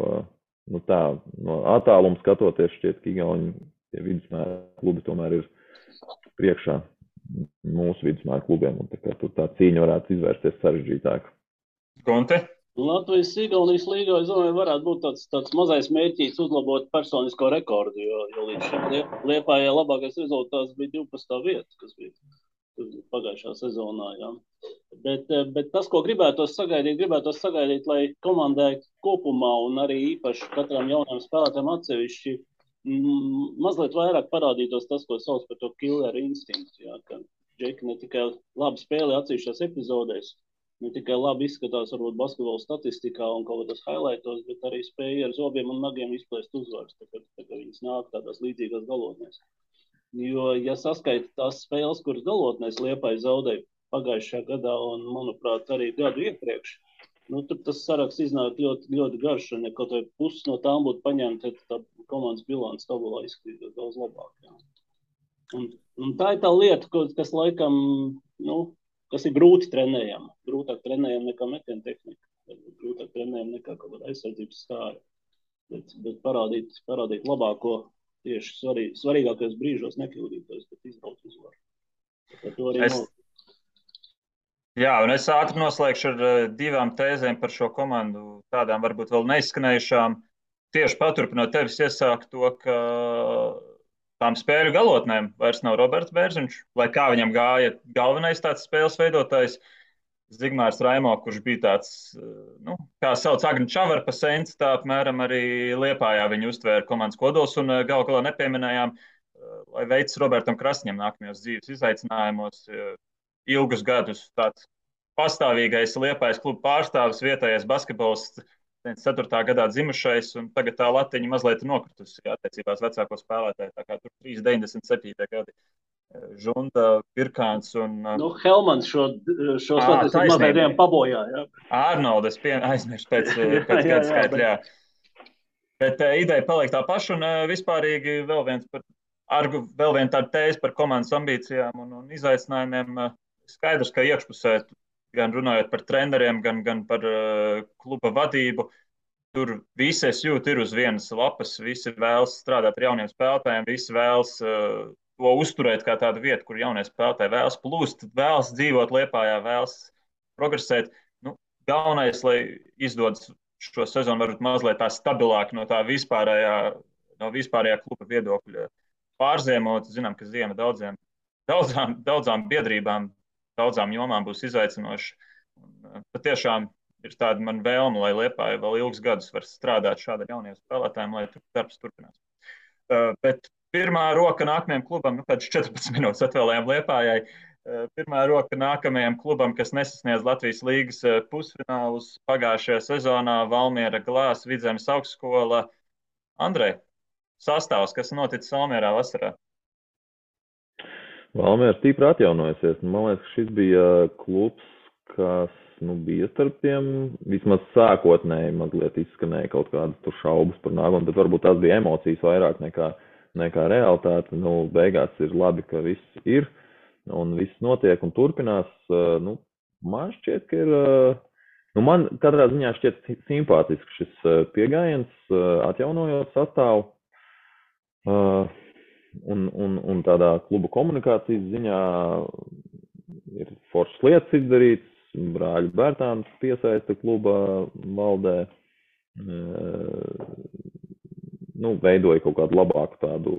Speaker 3: nu tā, no attāluma skatoties šķiet, ka Igauni tie vidusmēra klubi tomēr ir priekšā mūsu vidusmēra klubiem, un tā kā tur tā cīņa varētu izvērsties sarežģītāk.
Speaker 1: Gonte?
Speaker 2: Latvijas-Igaunijas līgā, es domāju, varētu būt tāds mazais mērķīts uzlabot personisko rekordu, jo līdz šim Liepājai labākais rezultāts bija 12. vieta, kas bija pagājušā sezonā, jā. Bet tas, ko gribētos sagaidīt, lai komandai kopumā un arī īpaši katram jaunam spēlētājam atsevišķi mazliet vairāk parādītos tas, ko sauc par to killer instinktu, jā, ka džeki ne tikai labi spēlē atsevišķās epizodēs, ne tikai labi izskatās varbūt basketbola statistikā un kaut kādos highlightos, bet arī spēja ar zobiem un nagiem izplēst uzvaras, tā kā viņas nāk tādās līdzīgās galotnēs. Jo, ja saskaita tās spēles, kuras galotnēs Liepāja zaudēja pagājušajā gadā un, manuprāt, arī gadu iepriekš, nu, tur tas saraksts iznāk ļoti, ļoti garš, un ja kaut vai puses no tām būtu paņemta, tad tā komandas bilants tabulā izskatītos daudz labāk. Jā. Un tā ir tā lieta, kas laikam, nu, kas ir grūti trenējama. Grūtāk trenējama nekā metiena tehnika. Grūtāk trenējama nekā kaut kāda aizsardzības stāra. Bet parādīt labāko tieši svarīgākajos brīžos nekļūdītos, bet izbraukt uzvaru.
Speaker 1: Jā, un es ātri noslēgšu ar divām tēzēm par šo komandu, tādām varbūt vēl neizskanējušām. Tieši paturpinot tevis iesākt to, ka tām spēļu galotnēm vairs nav Roberts Bērziņš, lai kā viņam gāja galvenais tāds spēles veidotājs Zigmārs Raimo, kurš bija tāds, nu, kā sauc Agni Čavarpa sens, tā apmēram arī Liepājā viņu uztvēra komandas kodols un galu galā nepieminējām, lai veids Robertam Krasņam nākamajos dzīves izaicinājumos ilgus gadus tāds pastāvīgais Liepājas kluba pārstāvis, vietējais basketbolists, 4. gadā dzimušais, un tagad tā latiņa mazliet nokritusi attiecībās vecāko spēlētāju, tā kā tur 3,97. gadi. Žunda, Pirkāns un...
Speaker 2: Helmans šo statistiku mazliet pabojā, jā.
Speaker 1: Arnolds aizmirst pēc gada skaitļa, jā. Bet ideja paliek tā paša, un vispārīgi vēl viena tāda tēze par komandas ambīcijām un izaicinājumiem. Skaidrs, ka iekšpusē, gan runājot par treneriem, gan par kluba vadību, tur visi es jūtu ir uz vienas lapas, visi vēlas strādāt ar jauniem spēlētājiem, visi vēlas to uzturēt kā tādu vietu, kur jaunie spēlētāji vēlas plūst, vēlas dzīvot Liepājā, vēlas progresēt. Nu, galvenais, lai izdodas šo sezonu varbūt mazliet tā stabilāk no tā vispārējā kluba viedokļa pārziemot. Zinām, ka ziema daudzām biedrībām, daudzām jomām būs izaicinoši. Patiešām ir tāda man vēlme, lai Liepāja vēl ilgus gadus var strādāt šāda jauniem spēlētājiem, lai darbs turpinās. Bet pirmā roka nākamajam klubam, kāds 14 minūtes atvēlējām Liepājai, pirmā roka nākamajam klubam, kas nesasniedz Latvijas līgas pusfinālus pagājušajā sezonā, Valmiera Glās, Vidzemes augstskola. Andrej, sastāvs, kas noticis Valmierā vasarā?
Speaker 3: Valmiera stipri atjaunojusies. Man liekas, šis bija klubs, kas bija starp tiem, vismaz sākotnēji mazliet izskanēja kaut kādas tur šaubas par nākotni, bet varbūt tās bija emocijas vairāk nekā realitāte. Beigās ir labi, ka viss ir un viss notiek un turpinās. Man šķiet, ka ir, man katrā ziņā šķiet simpātisks šis pieejams, atjaunojot sastāvu. Un tādā kluba komunikācijas ziņā ir foršas lietas izdarīts, brāļu Bērtāns piesaista kluba valdē, veidoja kaut kādu labāku tādu,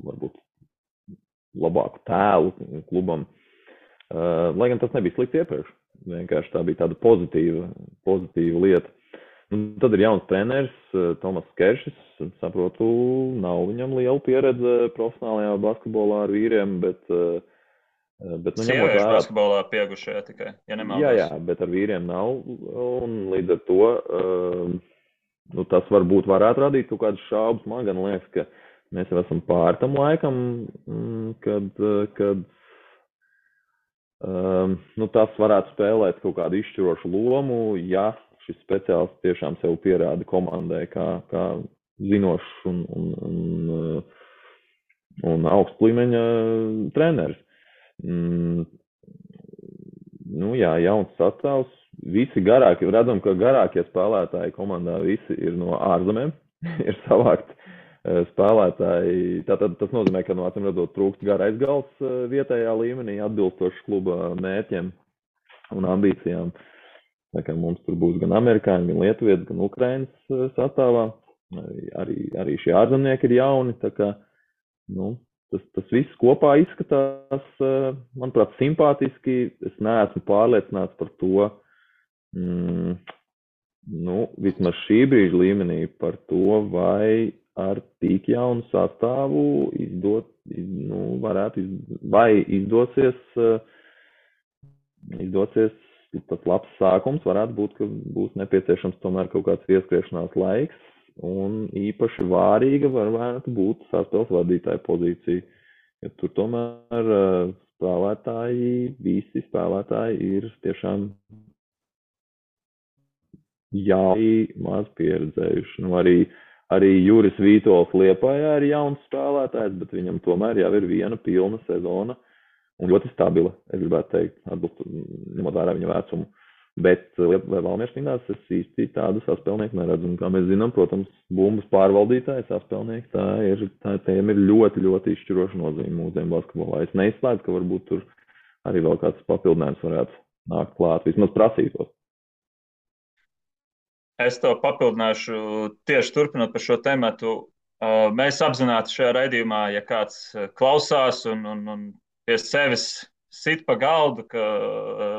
Speaker 3: varbūt labāku tēlu klubam, lai gan tas nebija slikti iepriekš, vienkārši tā bija tāda pozitīva lieta. Tad ir jauns treneris, Tomas Keršis, saprotu, nav viņam liela pieredze profesionālajā basketbolā ar vīriem, bet
Speaker 1: sieviešu basketbolā piegušajā tikai, ja nemaldos.
Speaker 3: Jā, bet ar vīriem nav, un līdz ar to, tas varbūt varētu radīt kaut kādas šaubas. Man gan liekas, ka mēs jau esam pār tam laikam, kad tas varētu spēlēt kaut kādu izšķirošu lomu, ja šis speciālists tiešām sev pierāda komandai kā zinošs un augsts līmeņa treneris. Jauns sastāvs. Visi garākie, redzam, ka garākie spēlētāji komandā visi ir no ārzemēm, ir savākt spēlētāji. Tātad tas nozīmē, ka acīm redzot trūkst garais gals vietējā līmenī, atbilstoši kluba mērķiem un ambīcijām. Tā kā mums tur būs gan amerikāņi, gan lietuvieši, gan ukrainas sastāvā. Arī šie ārzemnieki ir jauni. Tā kā, tas viss kopā izskatās, manuprāt, simpātiski. Es neesmu pārliecināts par to, vismaz šī brīža līmenī, par to, vai ar tik jaunu sastāvu izdosies tas labs sākums. Varētu būt, ka būs nepieciešams tomēr kaut kāds ieskriešanās laiks, un īpaši vārīga varētu būt sastāvs vadītāja pozīcija, jo tur tomēr visi spēlētāji ir tiešām maz pieredzējuši. Arī Juris Vītols Liepājā ir jauns spēlētājs, bet viņam tomēr jau ir viena pilna sezona. Un ļoti stabila, es gribētu teikt, ņemot vērā viņa vecumu. Bet Valmieras cīnās es īsti tādu saspēlnieku neredzu. Un, kā mēs zinām, protams, bumbas pārvaldītāji, saspēlnieki, tiem ir ļoti, ļoti izšķiroša nozīme mūsdienu basketbolā. Es neizslēdzu, ka varbūt tur arī vēl kāds papildinājums varētu nākt klāt, vismaz prasītos.
Speaker 1: Es to papildināšu tieši turpinot par šo tematu. Mēs apzināti šajā raidījumā, ja kāds klausās un pie sevis sit pa galdu, ka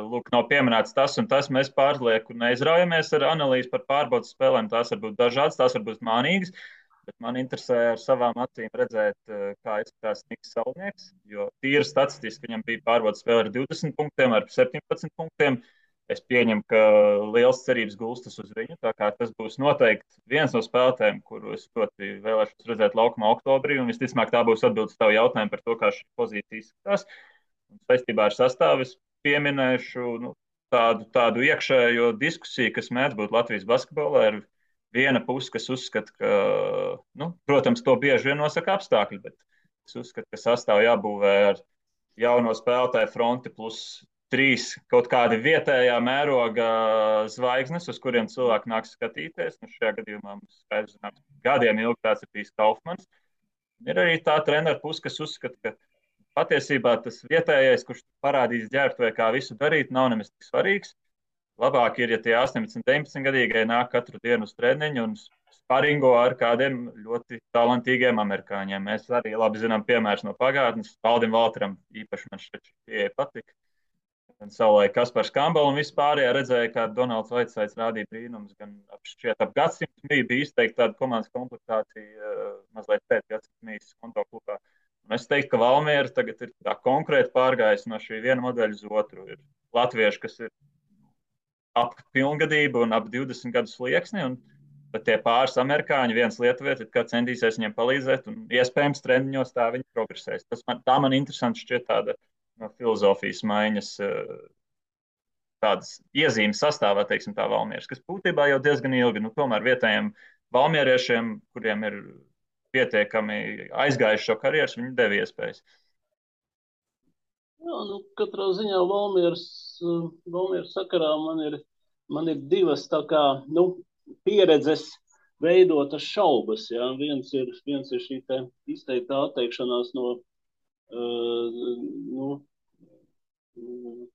Speaker 1: lūk, nav pieminēts tas un tas, mēs pārlieku neizraujamies ar analīzi par pārbaudas spēlēm. Tās var būt dažādas, tās var būt mānīgas, bet man interesē ar savām acīm redzēt, kā izskatās Niks Salnieks, jo tīri statistiski viņam bija pārbaudas spēle ar 20 punktiem, ar 17 punktiem. Es pieņemu, ka liels cerības gulstas uz viņu. Tā kā tas būs noteikti viens no spēlētājiem, kuru es ļoti vēlēšos redzēt laukumā oktobrī. Un visticamāk, tā būs atbildes tavu jautājumu par to, kā šī pozīcija izskatās. Un saistībā ar sastāvu es pieminēšu tādu iekšējo diskusiju, kas mēdz būt Latvijas basketbolā. Ir viena puse, kas uzskata, ka, protams, to bieži vien nosaka apstākļi, bet es uzskatu, ka sastāvu jābūvē ar jauno spēlētāju fronti plus 3 kaut kādi vietējā mēroga zvaigznes, uz kuriem cilvēki nāks skatīties. Nu, šajā gadījumā mums skaidrs, ka gadiem ilgi tāds ir bijis Kaufmans. Ir arī tā treneru puse, kas uzskata, ka patiesībā tas vietējais, kurš parādīs ģērbtuvē, kā visu darīt, nav nemaz tik svarīgs. Labāk ir, ja tie 18, 19 gadīgie nāk katru dienu uz treniņu un sparingo ar kādiem ļoti talantīgiem amerikāņiem. Mēs arī labi zinām piemērus no pagātnes. Valdim Valteram īpaši man šķiet šī pieeja patika. Savulaik Kaspars Kambala un vispārējā redzēja, kā Donalds Vaitsaits rādīja brīnums, gan ap gadsimtu bija izteikti tāda komandas komplektācija mazliet pēc gadsimtu mīs konto klubā. Un es teiktu, ka Valmiera tagad ir tā konkrēti pārgājis no šī viena modeļa uz otru. Ir latvieši, kas ir ap pilngadību un ap 20 gadu slieksni, un tad tie pāris amerikāņi, viens lietuvietis, kā centīsies viņiem palīdzēt, un iespējams treniņos tā viņi progresēs. Tā man interesanti šķiet tāda no filozofijas maiņas tādas iezīmes sastāvā, teiksim, tā Valmieras, kas būtībā jau diezgan ilgi, tomēr vietējiem valmieriešiem, kuriem ir pietiekami aizgājuši šo karjeras, viņi deva iespējas.
Speaker 2: Jā, katrā ziņā Valmieras sakarā man ir divas tā kā, pieredzes veidotas šaubas. Jā. Viens ir šī te izteiktā atteikšanās no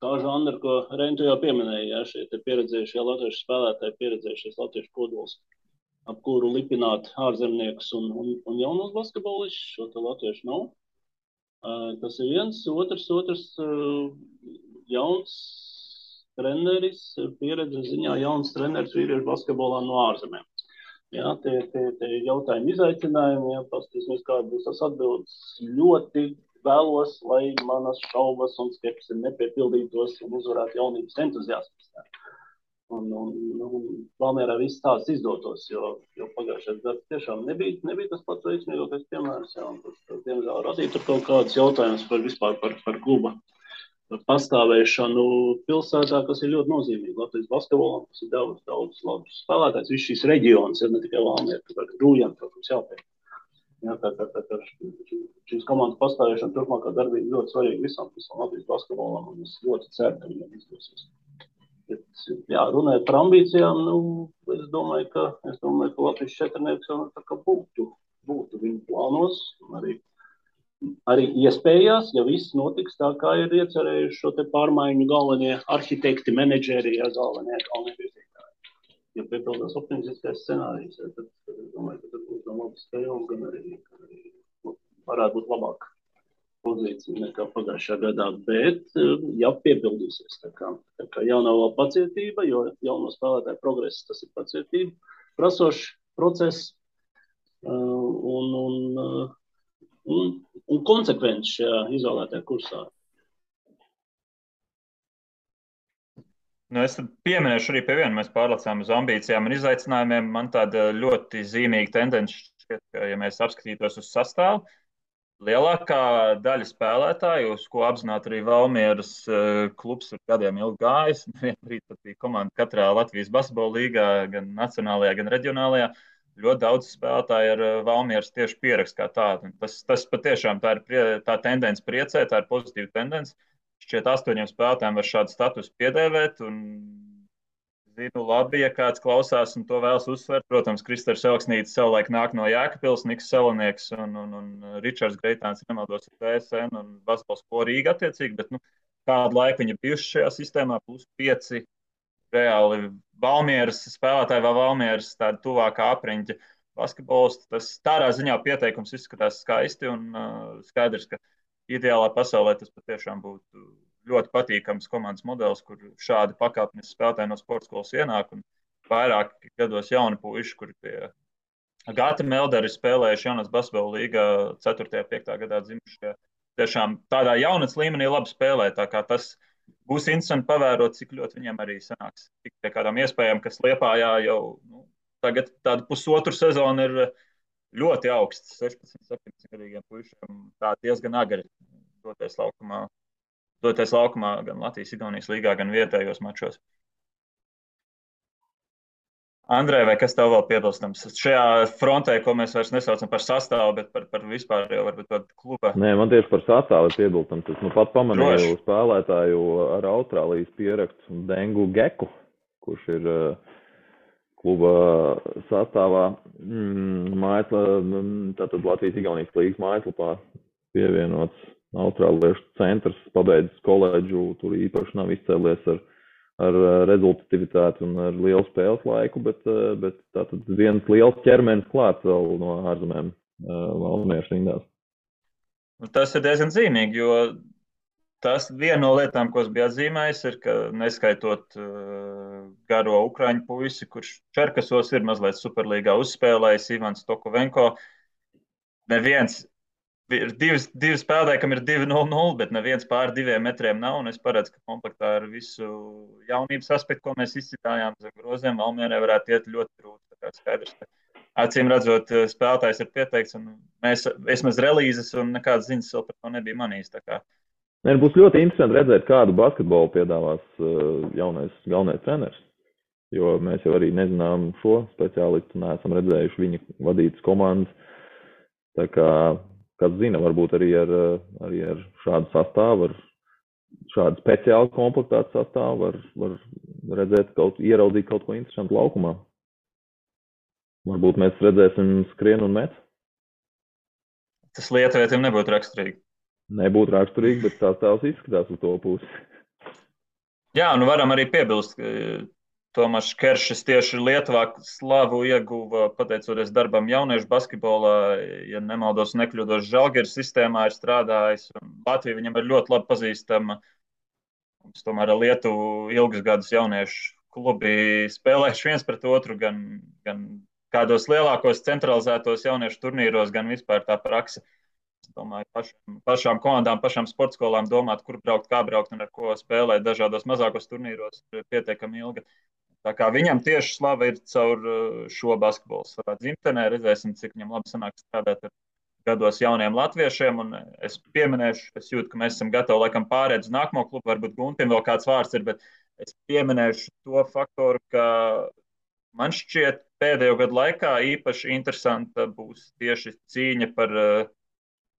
Speaker 2: tā žanra, ko Reini tu jau pieminēji, jā, šie te pieredzējušie latviešu spēlētāji, pieredzējušies latviešu kodols, ap kuru lipināt ārzemniekus un jaunos basketbolišus, šo te latviešu nav. Tas ir viens, otrs jauns treneris, pieredzes ziņā jauns treneris vīriešu basketbolā no ārzemēm. Jā, tie jautājumi izaicinājumi, jā, paskatīsimies, kāda būs tas atbildes. Ļoti vēlos, lai manas šaubas un skepsi nepiepildītos un uzvarētu jaunības entuziasmas. Un Valmierā viss tāds izdotos, jo pagājušais gads tiešām nebija tas pats veiksmīgākais piemērs, jā, un tas, diemžēl, radīja tur kaut kādas jautājumas par kluba pastāvēšanu pilsētā, kas ir ļoti nozīmīgi. Latvijas basketbolam, kas ir daudz labus spēlētājs. Viss šīs reģionas ir ne tikai Valmiera, bet Rūjana, protams, jāpēc. Jā, tā šīs komandas pastāvēšana turpmākā darbība ļoti svarīga visam Latvijas basketbolam, un es ļoti ceru, ka viņam izdosies. Bet, jā, runājot par ambīcijām, es domāju, ka Latvijas četrnieks jau tā kā būtu viņu plānos, arī iespējās, ja viss notiks tā, kā ir iecerējuši šo te pārmaiņu galvenie arhitekti, menedžeri, ja galvenie virzītāji. Ja piepildās optimistiskais scenārijs, tad es domāju, ka tad būs gan labas spēles, gan arī varētu būt labāka pozīcija nekā pagājušajā gadā. Bet, ja piepildīsies, tā kā jaunā vēl pacietība, jo jauno spēlētāju progress, tas ir pacietība, prasošs process un konsekvenci šajā izvēlētajā kursā.
Speaker 1: Es pieminēšu arī pie viena. Mēs pārlecām uz ambīcijām un izaicinājumiem. Man tāda ļoti zīmīga tendence šķiet, ka, ja mēs apskatītos uz sastāvu, lielākā daļa spēlētāju, uz ko apzināti arī Valmieras klubs ir gadiem ilgi gājis, vienbrīd pat bija komanda katrā Latvijas basketbola līgā, gan nacionālajā, gan reģionālajā. Ļoti daudz spēlētāju ar Valmieras tieši pierakstu kā tādu. Tas patiešām tā ir tā tendence priecē, tā ir pozitīva tendence. Šķiet 8 spēlētājiem var šādu statusu piedēvēt. Un zinu labi, ja kāds klausās un to vēlas uzsvērt. Protams, Kristers Elksnītis savulaik nāk no Jēkabpils, Niks Salonieks un Ričards Greitāns, nemaldos, ir TSN un basketbols ko Rīga attiecīgi. Bet kādu laiku viņi bijuši šajā sistēmā, plus 5 reāli Valmieras spēlētāji vai Valmieras tāda tuvākā apriņķa. basketbolists. Tas tādā ziņā pieteikums izskatās skaisti un skaidrs, ka ideālā pasaulē tas patiešām būtu ļoti patīkams komandas modelis, kur šādi pakāpeniski spēlētāji no sporta skolas ienāk un vairāk gados jauni puiši, kuri pie Gata Melderi spēlējuši jaunas basketbola līgā 4. un 5. gadā dzimušie. Tiešām tādā jaunatnes līmenī labi spēlē, tā kā tas būs interesanti pavērot, cik ļoti viņiem arī sanāks. Tik pie kādām iespējām, kas Liepājā jau tagad tādu pusotru sezonu ir ļoti augsts, 16, 17 gadīgiem puišiem, tā diezgan agri doties laukumā gan Latvijas Igaunijas līgā, gan vietējos mačos. Andrej, vai kas tev vēl piebilstams? Šajā frontē, ko mēs vairs nesaucam par sastāvu, bet par vispār jau varbūt tādu kluba.
Speaker 3: Nē, man tieši par sastāvu ir piebilstams. Es pat pamanīju spēlētāju ar Austrālijas pierakstu Dengu Geku, kurš ir kluba sastāvā tātad Latvijas Igaunijas līgas mājaslapā pievienots Austrāliešu centrs, pabeidzis koledžu, tur īpaši nav izcēlies ar rezultatīvitāti un ar lielu spēles laiku, bet tātad viens liels ķermenis klāts vēl no ārzemēm Valmieras rindās.
Speaker 1: Tas ir diezgan zīmīgi, jo tas viena no lietām, ko es biju atzīmējis, ir, ka neskaitot garo ukraiņu puisi, kurš Čerkasos ir mazliet Superlīgā uzspēlējis, Ivans Tokovenko, neviens ir divi spēlētāji, kam ir 2-0-0, bet neviens pār 2 metriem nav. Un es paredzu, ka komplektā ar visu jaunības aspektu, ko mēs izcitājām zem groziem, Valmierai varētu iet ļoti grūti. Tā kā skaidrs, ka acīm redzot, spēlētājs ir pieteikts, un mēs vismaz relīzes un nekādas ziņas vēl par to nebija manījis.
Speaker 3: Būs ļoti interesanti redzēt, kādu basketbolu piedāvās galvenais treneris. Jo mēs jau arī nezinām šo speciālistu, neesam redzējuši viņa vadītas komandas. Tā kā kas zina, varbūt arī ar šādu sastāvu, ar šādu speciālu komplektātu sastāvu var redzēt ieraudzīt kaut ko interesantu laukumā. Varbūt mēs redzēsim skrienu un met.
Speaker 1: Tas lietuvietiem nebūtu raksturīgi.
Speaker 3: Nebūtu raksturīgi, bet sastāvs izskatās uz to pusi.
Speaker 1: Jā, varam arī piebilst, ka Tomašs Keršs tieši Lietuvā slavu ieguva pateicoties darbam jauniešu basketbolā, ja nemaldos nekļūdos Žalgiris sistēmā ir strādājis. Latvija viņam ir ļoti labi pazīstama. Mums tomēr ar Lietuvu ilgus gadus jauniešu klubi spēlējuši viens pret otru, gan kādos lielākos centralizētos jauniešu turnīros, gan vispār tā praksa. Es domāju, pašām komandām, pašām sportskolām domāt, kur braukt, kā braukt un ar ko spēlēt dažādos mazākos turnīros ir pietiekami ilga. Tā kā viņam tieši slava ir caur šo basketbolu savā dzimtenē. Redzēsim, cik viņam labi sanāk strādāt ar gados jauniem latviešiem. Un es pieminēšu, es jūtu, ka mēs esam gatavi laikam pārēt uz nākamo klubu. Varbūt Guntim vēl kāds vārds ir, bet es pieminēšu to faktoru, ka man šķiet pēdējo gadu laikā īpaši interesanta būs tieši cīņa par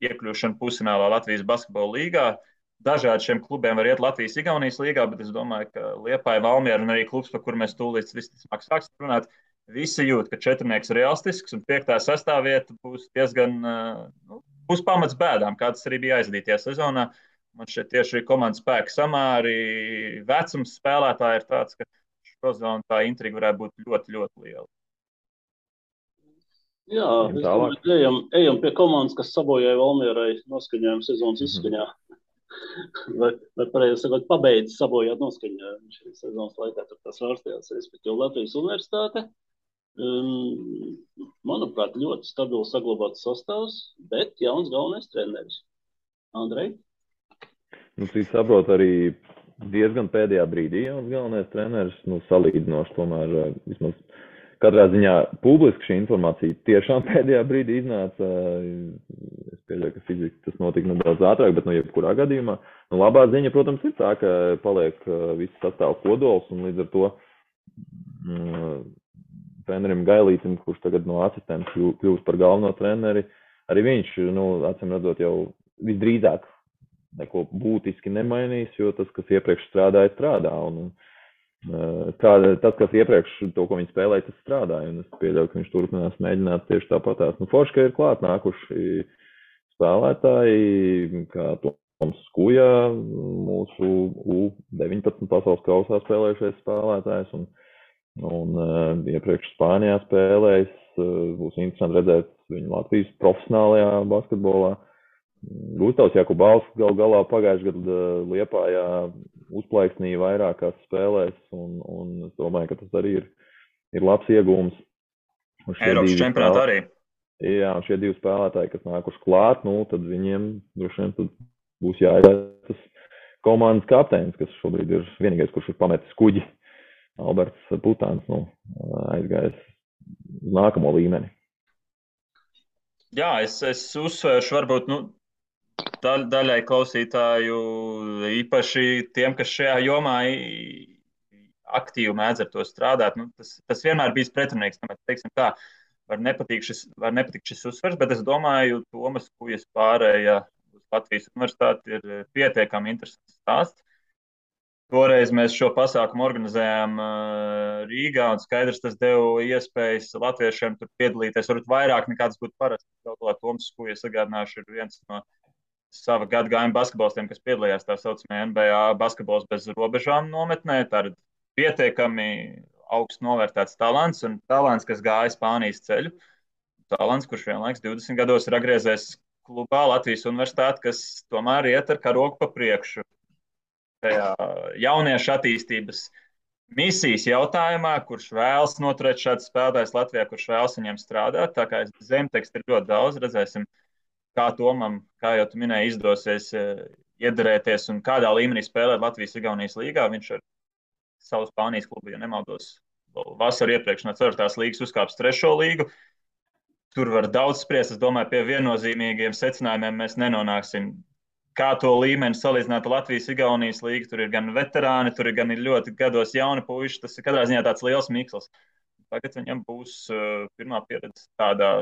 Speaker 1: iekļūšanu pusfinālā Latvijas basketbola līgā. Dažādi šiem klubiem var iet Latvijas Igaunijas līgā, bet es domāju, ka Liepāja, Valmiera un arī klubs, par kur mēs tūlīt visticamāk sāksim runāt, visi jūt, ka četrnieks ir realistisks un 5. sastāvvieta būs diezgan, būs pamats bēdām, kā tas arī bija aizdītajā sezonā. Man šeit tieši komandas spēka samāri, vecums spēlētāji ir tāds, ka šo zonu tā intriga varētu būt ļoti, ļoti liela.
Speaker 2: Jā, es domāju, ejam pie komandas, kas sabojāja Valmierai noskaņojumu sezonas izskaņā. Vai pareizi sakot, pabeidz sabojāt noskaņojumu šīs sezonas laikā, tur tas vārstījās, respektīvi Latvijas universitāte. Manuprāt, ļoti stabili saglabāts sastāvs, bet jauns galvenais treneris. Andrej?
Speaker 3: Cik saprot, arī diezgan pēdējā brīdī jauns galvenais treneris, salīdzinoši tomēr vismaz katrā ziņā publiski šī informācija tiešām pēdējā brīdī iznāca. Es pieļauju, ka fiziski tas notika nedaudz ātrāk, bet jebkurā gadījumā. Labā ziņa, protams, ir tā, ka paliek viss sastāv kodols un līdz ar to trenerim Gailītim, kurš tagad no asistenta kļūst par galveno treneri, arī viņš, acīm redzot, jau visdrīzāk neko būtiski nemainīs, jo tas, kas iepriekš strādāja, strādā. Tas, kas iepriekš to, ko viņi spēlēja, tas strādāja, un es pieļauju, ka viņš turpinās mēģināt tieši tāpatās. Forši, ka ir klāt nākuši spēlētāji, kā Toms Skuja, mūsu U19 pasaules kausā spēlējušais spēlētājs, un Un iepriekš Spānijā spēlējis. Būs interesanti redzēt viņu Latvijas profesionālajā basketbolā. Gustavs Jakubāls galā pagājušajā gadā Liepājā uzplaiksnīja vairākās spēlēs, un es domāju, ka tas arī ir labs iegūms.
Speaker 1: Eiropas čempionātā arī.
Speaker 3: Jā, un šie 2 spēlētāji, kas nākuši klāt, tad viņiem droši vien būs jāizvēlas tas komandas kapteinis, kas šobrīd ir vienīgais, kurš ir pametis kuģi. Alberts Putāns aizgājis uz nākamo līmeni.
Speaker 1: Jā, es uzsvēršu varbūt daļai klausītāju, īpaši tiem, kas šajā jomā aktīvi mēdz ar to strādāt. Tas vienmēr bijis pretrunīgs. Teiksim tā, var nepatikt šis uzsvers, bet es domāju, Tomas Kujas pārēja uz Latvijas universitāti ir pietiekami interesants stāsts. Toreiz mēs šo pasākumu organizējām Rīgā, un skaidrs, tas deva iespējas latviešiem tur piedalīties, varbūt vairāk nekā tas būtu parasti. Toms Kujas, atgādināšu, ir viens no sava gadagājuma basketbolistiem, kas piedalījās tā saucamajā NBA basketbols bez robežām nometnē. Tā ir pietiekami augsts novērtēts talants, un talants, kas gāja Spānijas ceļu. Talants, kurš vienlaiks 20 gados ir atgriezies klubā Latvijas universitāti, kas tomēr iet ar karogu pa priekšu. Tajā jauniešu attīstības misijas jautājumā, kurš vēlas noturēt šādus spēlētājus Latvijā, kurš vēlas viņiem strādāt. Tā kā zemtekstu ir ļoti daudz, redzēsim, kā Tomam, kā jau tu minēji, izdosies iederēties un kādā līmenī spēlēt Latvijas-Igaunijas līgā. Viņš ar savu Spānijas klubu, ja nemaldos, vasaru iepriekš no 4. līgas uzkāps 3. līgu. Tur var daudz spriest. Es domāju, pie viennozīmīgiem secinājumiem mēs nenonāksim. Kā to līmeni salīdzināt ar Latvijas-Igaunijas līgu, tur ir gan veterāni, tur ir gan ļoti gados jauni puiši. Tas ir katrā ziņā tāds liels miksls. Tagad viņam būs pirmā pieredze tādā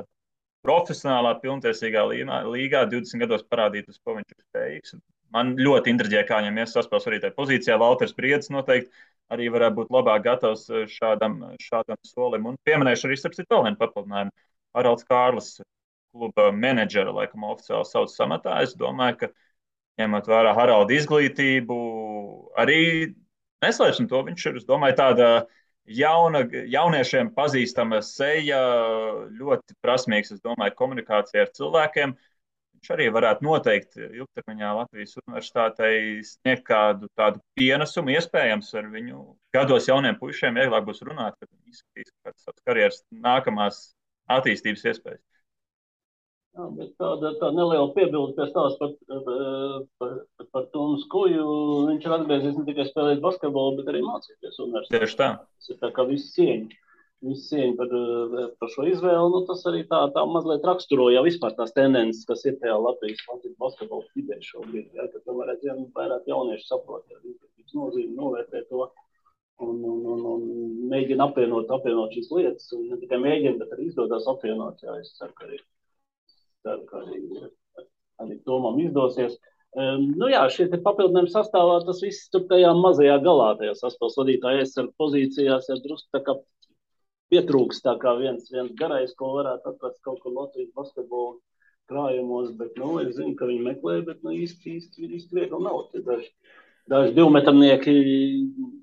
Speaker 1: profesionālā, pilntiesīgā līgā, 20 gados parādīt, uz ko viņš ir spējīgs. Man ļoti intriģē, kā viņam saspēles arī tajā pozīcijā. Valters Briedis noteikti arī varētu būt labāk gatavs šādam solim. Un pieminēšu arī starp citu vēl vienu papildinājumu. Haralds Kārlis, kluba menedžera, laikam oficiāli sauc samatā. Es domāju, ka ņemot vērā Haralda izglītību, arī neslēpsim to, viņš ir, es domāju, tāda jauniešiem pazīstama seja, ļoti prasmīgs, es domāju, komunikācija ar cilvēkiem. Viņš arī varētu noteikti ilgtermiņā Latvijas universitātei sniegt kādu tādu pienesumu, iespējams ar viņu gados jauniem puišiem vieglāk būs runāt, kad viņi izskatīs kādas savas karjeras nākamās attīstības iespējas.
Speaker 2: Jā, bet tāda neliela piebilde pie stāsta par Tomas Kuju. Viņš ir atgriezies ne tikai spēlēt basketbolu, bet arī mācīties universitātē.
Speaker 1: Tieši tā.
Speaker 2: Tas ir tā kā visi cieņi par šo izvēli. Tas arī tā mazliet raksturo jau vispār tās tendences, kas ir tajā Latvijas basketbola vidē šobrīd. Ja, kad tomēr vairāk jaunieši saprot, ja izglītības nozīme, novērtē to un mēģina apvienot šīs lietas. Un ne tikai mēģina, bet arī izdodas apvienot. Jā, es ceru, ka arī Tomam izdosies. Šie te papildinājumi sastāvā, tas viss tur tajā mazajā galā, tajā saspēles vadītāja aizsarga pozīcijās, ja drusku tā kā pietrūks tā kā viens garais, ko varētu atrast kaut kur Latvijas basketbola krājumos, bet, es zinu, ka viņi meklē, bet, īsti viegli nav. Daži divmetrnieki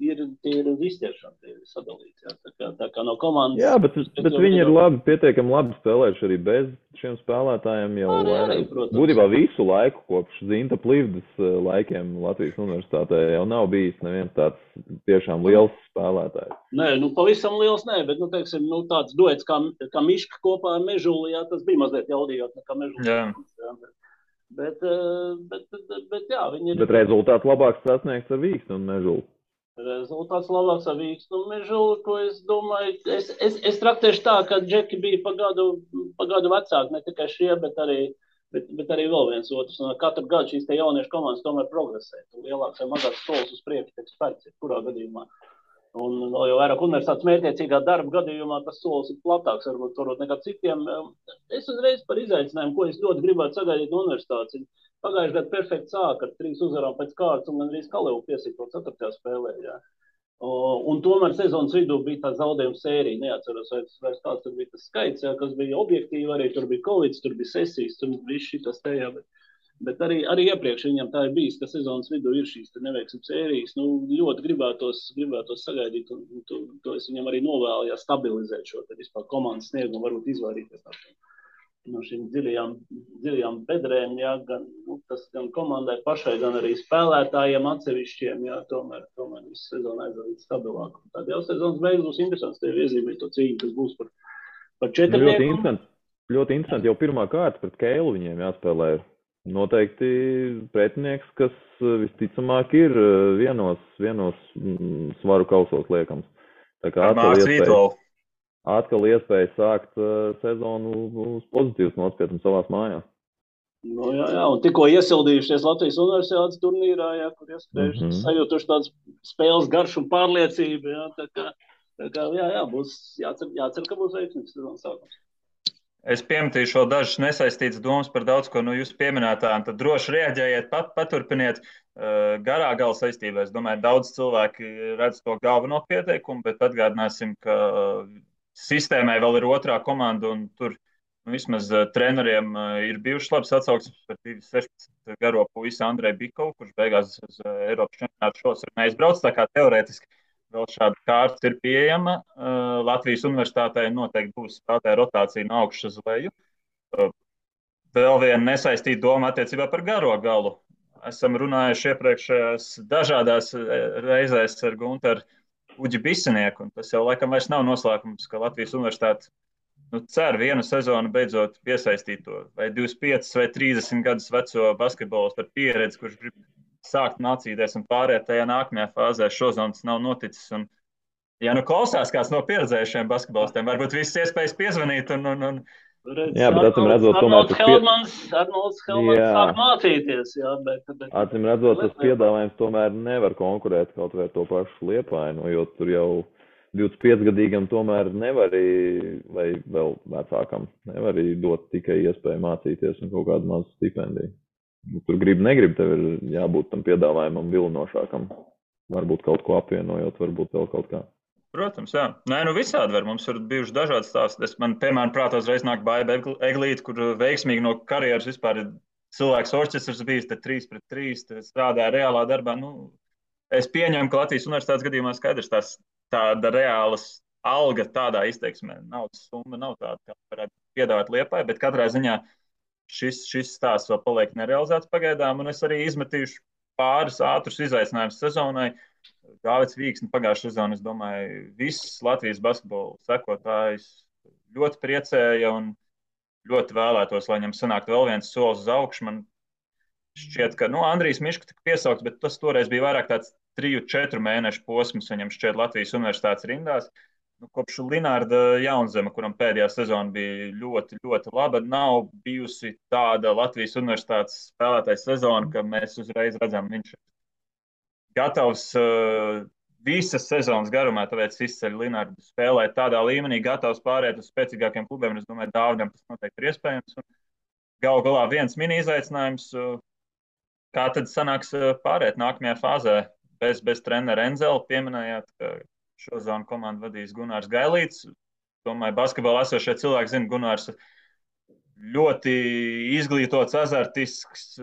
Speaker 2: ir izķeršana, tie ir sadalīti. Tā kā no komandas...
Speaker 3: Jā, bet viņi ir pietiekami labi spēlējuši arī bez šiem spēlētājiem jau būtībā visu laiku, kopš Zinta Plivdas laikiem Latvijas universitātē jau nav bijis neviens tāds tiešām liels spēlētājs.
Speaker 2: Nē, pavisam liels nē, bet, teiksim, tāds duets kā Miška kopā ar Mežuli, jā, tas bija mazliet jaudījot nekā Mežuli.
Speaker 1: Jā.
Speaker 2: Bet jā, viņi ir...
Speaker 3: Bet rezultāts labāks sasniegts ar Vīksnu un Mežulu.
Speaker 2: Rezultāts labāks ar Vīksnu un Mežulu, ko es domāju... Es traktēšu tā, ka džeki bija pagadu vecāki, ne tikai šie, bet arī vēl viens otrs. Un katru gadu šīs te jauniešu komandas tomēr progresē. Lielāks vai mazāks solis uz priekšu tiek spērts, kurā gadījumā. Un vēl jau vairāk universitātes mērķiecīgā darba gadījumā tas solis ir platāks, varbūt nekā citiem. Es uzreiz par izaicinājumu, ko es ļoti gribētu sagaidīt no universitātes. Pagājušajā gadā perfekti sāka ar 3 uzvarām pēc kārtas un gandrīz Kalevu piesīto 4. spēlē. Jā. Un tomēr sezonas vidū bija tā zaudējuma sērija. Neatceros, vai kāds tur bija tas skaits, jā, kas bija objektīvi arī. Tur bija Covid, tur bija sesijas, tur bija šitas tajā. Bet arī iepriekš viņam tā ir bijis, ka sezonas vidū ir šīs neveiksmes sērijas. Ļoti gribētos sagaidīt, un to es viņam arī novēlu, ja stabilizēt šo vispār komandas sniegumu, varbūt izvairīties no šīm dziļajām bedrēm, jā, tas gan komandai pašai, gan arī spēlētājiem atsevišķiem, jā, tomēr visu sezonu aizvadīt stabilāk. Tad jau sezonas beigas būs interesants, tev iezīmēt to cīņu, kas būs par četrnieku.
Speaker 3: Ļoti interesanti, jau pirmā kārta pret Keilu viņiem jāspēlē. Noteikti pretinieks, kas visticamāk ir vienos svaru kausos liekams. Tā kā atkal iespēja sākt sezonu uz pozitīvas nospētnes savās mājās.
Speaker 2: Jā, un tikko iesildījušies Latvijas universitātes turnīrā, jā, kur iespējuši sajūtuši tādas spēles garšu un pārliecību, jā, tā kā jā, būs jācer, ka būs veiksmīgs sezonas sākums.
Speaker 1: Es piemetīšu vēl dažas nesaistītas domas par daudz ko no jūsu pieminētām, tad droši reaģējiet, paturpiniet garā gala saistībā. Es domāju, daudz cilvēki redz to galveno pieteikumu, bet atgādināsim, ka sistēmai vēl ir otrā komanda, un tur vismaz treneriem ir bijušas labas atsauksmes par 16 garo puisi Andreju Bikovu, kurš beigās uz Eiropas čempionātu šos ir neizbrauc, tā kā teorētiski vēl šāda kārta ir pieejama. Latvijas universitātei noteikti būs spēlētāja rotācija no augšas uz leju. Vēl viena nesaistīta doma attiecībā par garo galu. Esam runājuši iepriekšējās dažādās reizēs ar Gunteru Uģi Bisenieku, un tas jau laikam vairs nav noslēpums, ka Latvijas universitāte cer vienu sezonu beidzot piesaistīt to vai 25 vai 30 gadus veco basketbolu ar pieredzi, kurš grib sākt mācīties un pārēt tajā nākamajā fāzē. Šodien tas nav noticis. Un, ja klausās kāds no pieredzējušiem basketbolistiem, varbūt visas iespējas piezvanīt.
Speaker 3: Jā, bet acīm redzot,
Speaker 2: Arnolds Helmans sāk mācīties. Jā, bet
Speaker 3: acīm redzot, tas piedāvājums tomēr nevar konkurēt kaut vai ar to pašu Liepainu, jo tur jau 25-gadīgam tomēr nevar, vai vēl vecākam, nevar dot tikai iespēju mācīties un kaut kādu mazu stipendiju. Tur negrib, tev ir jābūt tam piedāvājumam vilinošākam. Varbūt kaut ko apvienojot, varbūt vēl kaut kā.
Speaker 1: Protams, jā. Nē, visādi var. Mums ir bijuši dažādi stāsti. Man, piemēram, prātā uzreiz nāk Baiba Eglīte, kur veikmīgi no karjeras vispār ir cilvēks orķestrs bijis, te 3-3, strādāja reālā darbā. Es pieņemu, ka Latvijas universitātes gadījumā skaidrs tāda reālas alga tādā izteiksmē. Naudas summa nav tāda, kā varētu piedāvāt Liepai, bet katrā ziņā šis stāsts vēl paliek nerealizēts pagaidām, un es arī izmetīšu pāris ātrus izaicinājumus sezonai. Gāvets Vīksni pagājušā sezona, es domāju, viss Latvijas basketbola sekotājs ļoti priecēja un ļoti vēlētos, lai viņam sanāktu vēl viens solis uz augšu. Man šķiet, ka Andrijs Miška tika piesaukts, bet tas toreiz bija vairāk tāds 3-4 mēnešu posms viņam šķiet Latvijas universitātes rindās. Kopš Linārda Jaunzema, kuram pēdējā sezona bija ļoti, ļoti laba, nav bijusi tāda Latvijas universitātes spēlētāja sezona, ka mēs uzreiz redzam, viņš ir gatavs visas sezonas garumā, tāpēc izceļ Linārdu spēlēt tādā līmenī, gatavs pārēt uz spēcīgākiem klubiem. Es domāju, Dāvidam tas noteikti ir iespējams. Galu galā viens mini izaicinājums, kā tad sanāks pārēt nākamajā fāzē bez trenera Enzela. Pieminējāt, ka šozonu komandu vadīs Gunārs Gailīts. Domāju, basketbolā esošie cilvēki zina, Gunārs ļoti izglītots, azartisks,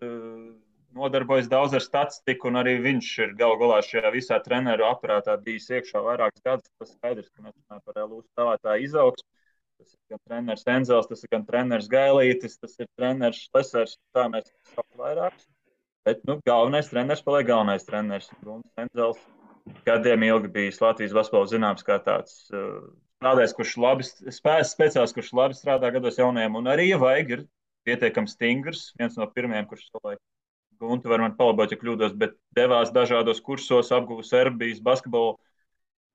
Speaker 1: nodarbojas daudz ar statistiku, un arī viņš ir galu galā šajā visā treneru aparātā bijis iekšā vairākus gadus. Tas skaidrs, ka mēs runājam par LU spēlētāju izaugsmu. Tas ir gan treneris Enzels, tas ir gan treneris Gailītis, tas ir treneris Šlesers, tā mēs sauc vairākus. Bet, galvenais treneris paliek galvenais treneris. Gunārs Enzels gadiem ilgi bijis Latvijas basketbola zināms kā tāds strādājs, kurš labi speciāls, kurš labi strādā gados jaunajiem, un arī, ja vajag, ir pietiekami stingrs. Viens no pirmajiem, kurš savulaik Guntu var man palabot, ja kļūdos, bet devās dažādos kursos, apguva Serbijas basketbolu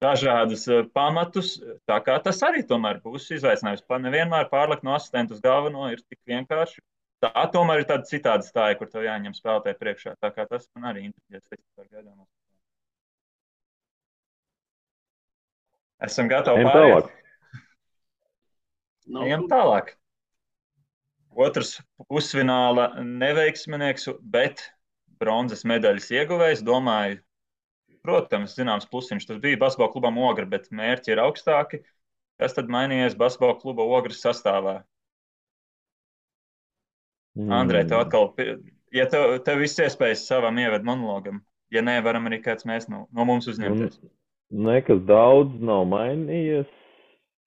Speaker 1: dažādas pamatus. Tā kā tas arī tomēr būs izaicinājums. Nevienmēr pārlikt no asistenta uz galveno ir tik vienkārši. Tā tomēr ir tāda citāda stāja, kur tev jāņem spēlētāji priekšā. Tā kā tas man arī interesē par gaidāmās. Esam gatavi pārēt. Ejam tālāk. Otrs pusfināla neveiksminieks, bet bronzas medaļas ieguvējs. Domāju, protams, zināms plusiņš. Tas bija basketbola klubam Ogra, bet mērķi ir augstāki. Kas tad mainījies basketbola kluba Ogras sastāvā? Andrej, tev atkal ja tev viss iespējas savam ieved monologam, ja nē, varam arī kāds mēs no mums uzņemties.
Speaker 3: Nekas daudz nav mainījies.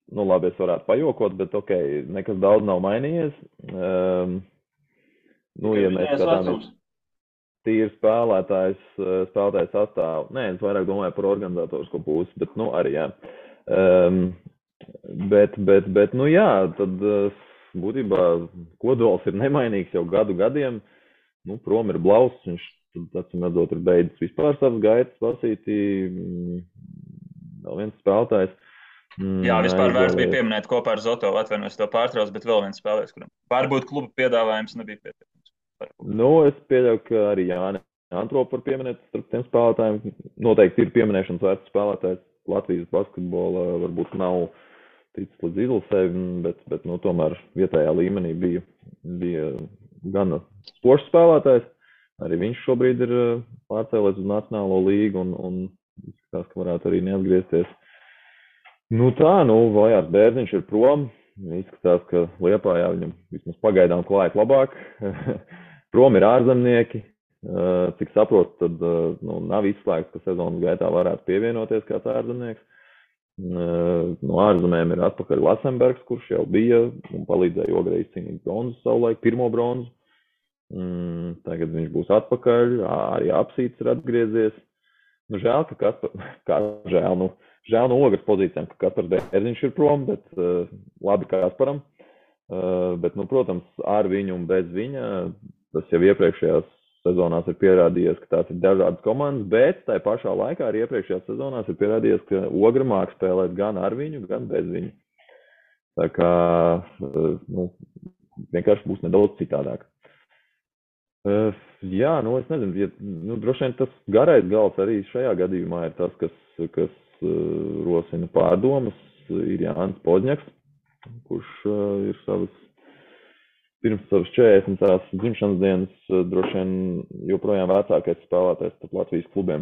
Speaker 3: Nu, labi, es varētu pajokot, bet ok, nekas daudz nav mainījies. Ja mēs skatāmies tīri spēlētājs sastāvu, nē, es vairāk domāju par organizatorisko pusi, bet, arī, jā. Bet, jā, tad būtībā kodols ir nemainīgs jau gadiem. Prom ir Blauss, viņš, acīm redzot, ir beidzis vispār savas gaitas lasītī. Vēl viens spēlētājs.
Speaker 1: Jā, vispār vērts bija pieminēt kopā ar Zotovu, atvainojos to pārtrauc, bet vēl viens spēlētājs, kuram varbūt kluba piedāvājums nebija pietiekams.
Speaker 3: Es pieļauju, ka arī Jāni Antropu var pieminēt starp tiem spēlētājiem. Noteikti ir pieminēšanas vērts spēlētājs. Latvijas basketbola varbūt nav ticis līdz izlasēm, bet tomēr vietējā līmenī bija gana spožs spēlētājs. Arī viņš šobrīd ir pārcēlēs uz Nacionālo līgu un izskatās, ka varētu arī neatgriezties. Vajārs Bērziņš ir prom. Izskatās, ka Liepājā viņam vismaz pagaidām klājas labāk. Prom ir ārzemnieki. Cik saprotu, tad nav izslēgts, ka sezonas gaitā varētu pievienoties kāds ārzemnieks. No ārzemēm ir atpakaļ Lasenbergs, kurš jau bija un palīdzēja Ogrei izcīnīt bronzu savulaik, pirmo bronzu. Tagad viņš būs atpakaļ. Arī Apsīts ir atgriezies. Žēl, ka žēl no Ogres pozīcijām, ka Kaspars Bērziņš ir prom, bet labi Kasparam. Bet, protams, ar viņu un bez viņa, tas jau iepriekšējās sezonās ir pierādījies, ka tās ir dažādas komandas, bet tai pašā laikā arī iepriekšējās sezonās ir pierādījies, ka Ogra māk spēlēt gan ar viņu, gan bez viņu. Tā kā, vienkārši būs nedaudz citādāk. Jā, es nezinu, droši vien tas garais gals arī šajā gadījumā ir tas, kas rosina pārdomas, ir Jānis Podņaks, kurš ir pirms savas 40. dzimšanas dienas droši vien joprojām vecākais spēlētājs starp Latvijas klubiem.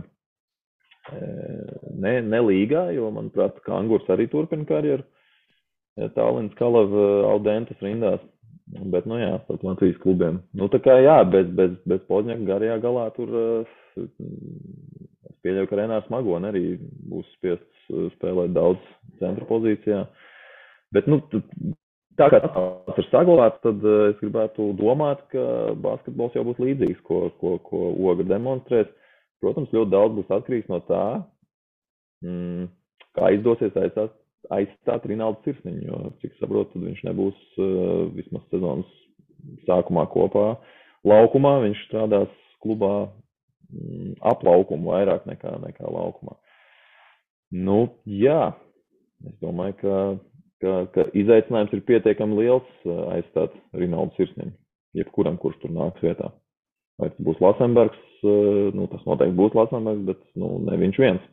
Speaker 3: Ne līgā, jo, manuprāt, Kangurs arī turpina karjeru. Tallinas Kalava Audentas rindās. Bet, starp Latvijas klubiem. Tā kā, jā, bez Podņaka garajā galā tur es pieļauju, ka Renārs Magone arī būs spiests spēlēt daudz centra pozīcijā. Bet, tā kā tas ir saglabāts, tad es gribētu domāt, ka basketbols jau būs līdzīgs, ko Ogra demonstrēs. Protams, ļoti daudz būs atkarīgs no tā, kā izdosies aizstāt Rinaldu Sirsniņu, jo, cik saprotu, tad viņš nebūs vismaz sezonas sākumā kopā laukumā. Viņš strādās klubā ap laukumu vairāk nekā laukumā. Jā, es domāju, ka izaicinājums ir pietiekami liels aizstāt Rinaldu Sirsniņu, jebkuram, kurš tur nāks vietā. Vai tas būs Lasenbergs, tas noteikti būs Lasenbergs, bet ne viņš viens.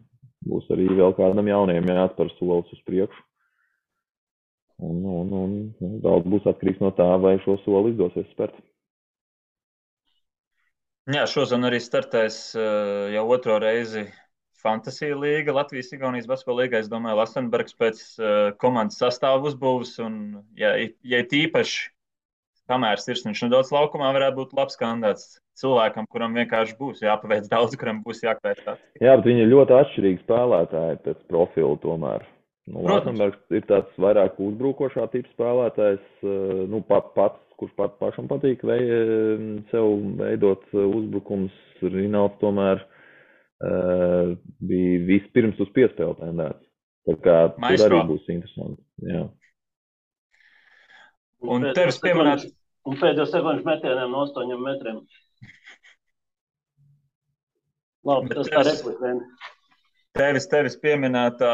Speaker 3: Būs arī vēl kādam jauniem jāatspēr solis uz priekšu. Un daudz būs atkarīgs no tā, vai šo soli izdosies spērt.
Speaker 1: Jā, šodien arī startēs jau otro reizi Fantasy līga, Latvijas-Igaunijas basketbola līga. Es domāju, Lasenbergs pēc komandas sastāvu uzbūves un, ja tīpaši kamēr Sirsniņš nedaudz laukumā, varētu būt labs kandidāts cilvēkam, kuram vienkārši būs jāpaveic daudz, kuram būs jākvēt tāds. Jā,
Speaker 3: bet viņi ir ļoti atšķirīgi spēlētāji pēc profilu tomēr. Lasenbergs ir tāds vairāk uzbrukošā tipa spēlētājs, kurš pašam patīk sev veidot uzbrukums. Rinalds tomēr bija vispirms uz piespēli tendēts. Tā kā tur arī būs interesanti. Jā.
Speaker 1: Un tevis pieminēt...
Speaker 2: Un pēdējos sekundžu metieniem no 8 metriem. Labi, tas tā replika.
Speaker 1: Tevis pieminētā,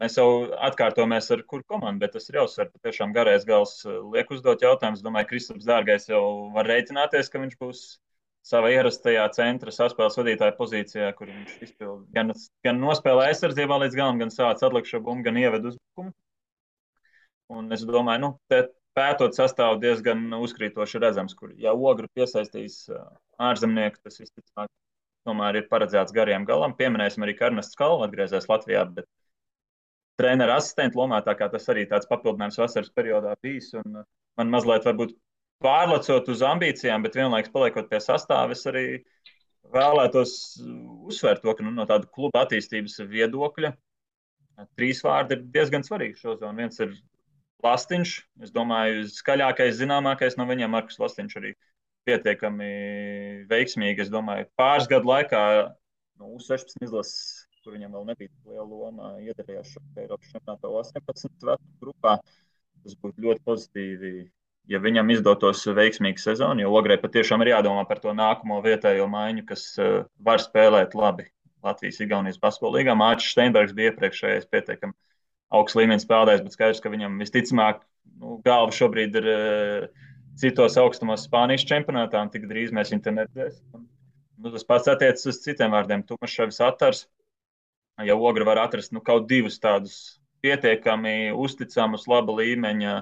Speaker 1: mēs jau atkārtojamies ar kuru komandu, bet tas ir jāuzsver, patiešām garais gals liek uzdot jautājumus. Domāju, Kristaps Dārgais jau var rēķināties, ka viņš būs savā ierastajā centra saspēles vadītāja pozīcijā, kur viņš izpild gan nospēlē aizsardzībā līdz galam, gan sāc atlikšo bumbu, gan ieved uzbrukumu. Un es domāju, pētot sastāvu diezgan uzkrītoši redzams, kur, ja Ogru piesaistīs ārzemnieku, tas visticamāk tomēr ir paredzēts gariem galam. Pieminēsim arī, ka Ernests Kalva atgriezies Latvijā, bet trenera asistenta lomā, tā kā tas arī tāds papildinājums vasaras periodā bijis. Un man mazliet varbūt pārlecot uz ambīcijām, bet vienlaikus paliekot pie sastāva, es arī vēlētos uzsvērt to, ka no tāda kluba attīstības viedokļa 3 vārdi ir diezgan svarīgi šo zonu. Viens ir Lastiņš. Es domāju, skaļākais, zināmākais no viņiem Markus Lastiņš arī pietiekami veiksmīgi. Es domāju, pāris gadu laikā no U16 izlases, kur viņam vēl nebija liela loma, iedarījās šo Eiropas čempionātā 18 vecu grupā. Tas būtu ļoti pozitīvi, ja viņam izdotos veiksmīga sezona, jo Ogrei patiešām ir jādomā par to nākamo vietējo maiņu, kas var spēlēt labi Latvijas-Igaunijas basketbola līgā. Mārcis Steinbergs bija iepriekšējais pietiekami augsts līmenis spēlētājs, bet skaidrs, ka viņam visticamāk galva šobrīd ir citos augstumos Spānijas čempionātā, un tik drīz mēs viņu te neredzēsim. Tas pats attiecas uz citiem vārdiem. Tumaševs Atars, ja Ogra var atrast kaut divus tādus pietiekami uzticamus, laba līmeņa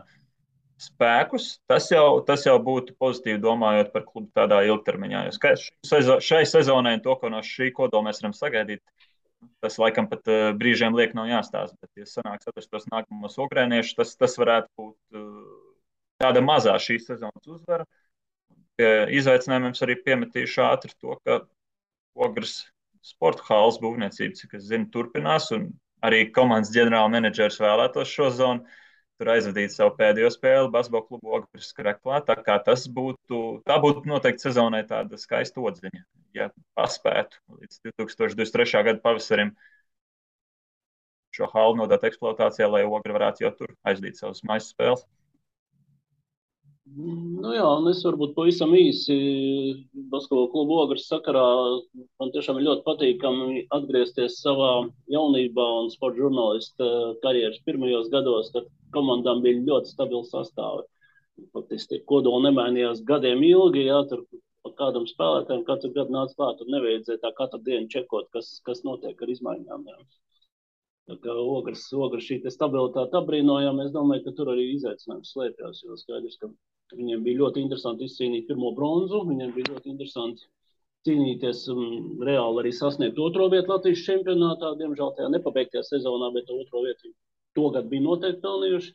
Speaker 1: spēkus, tas jau būtu pozitīvi domājot par klubu tādā ilgtermiņā. Jo šai sezonai to, ko no šī kodola mēs varam sagaidīt, tas laikam pat brīžiem liek nav jāstāsta, bet, ja sanāks atrast tos nākamos ogrēniešus, tas varētu būt tāda mazā šīs sezonas uzvara. Pie izaicinājumiem arī piemetīšu ātri to, ka Ogres sporta halas būvniecība, cik es zinu, turpinās, un arī komandas ģenerāla menedžers vēlētos šo zonu tur aizvadīt savu pēdējo spēli basketbola klubu Ogres Skreklā. Tā kā tā būtu noteikti sezonai tāda skaista odziņa, ja paspētu līdz 2023. Gada pavasarim šo halu nodot eksploatācijā, lai Ogra varētu jau tur aizdīt savas mājas spēles.
Speaker 2: Nu jā, un es varbūt pavisam īsi basketbola klubu Ogres sakarā. Man tiešām ir ļoti patīkami atgriezties savā jaunībā un sporta žurnālista karjeras pirmajos gados, kad komandām bija ļoti stabili sastāvi. Faktiski kodola nemainījās gadiem ilgi, jā, tur pa kādam spēlētājiem katru gadu nāca klāt, tur nevajadzēja tā katru dienu čekot, kas notiek ar izmaiņām. Jā. Tā kā Ogres šī stabilitāte apbrīnojam, es domāju, ka tur arī izaicinājums slēpjas, jo skaidrs, ka viņiem bija ļoti interesanti izcīnīt pirmo bronzu, viņiem bija ļoti interesanti cīnīties reāli arī sasniegt otro vietu Latvijas čempionātā, diemžēl tajā nepabeigtajā sezonā, bet otro vietu togad bija noteikti pelnījuši.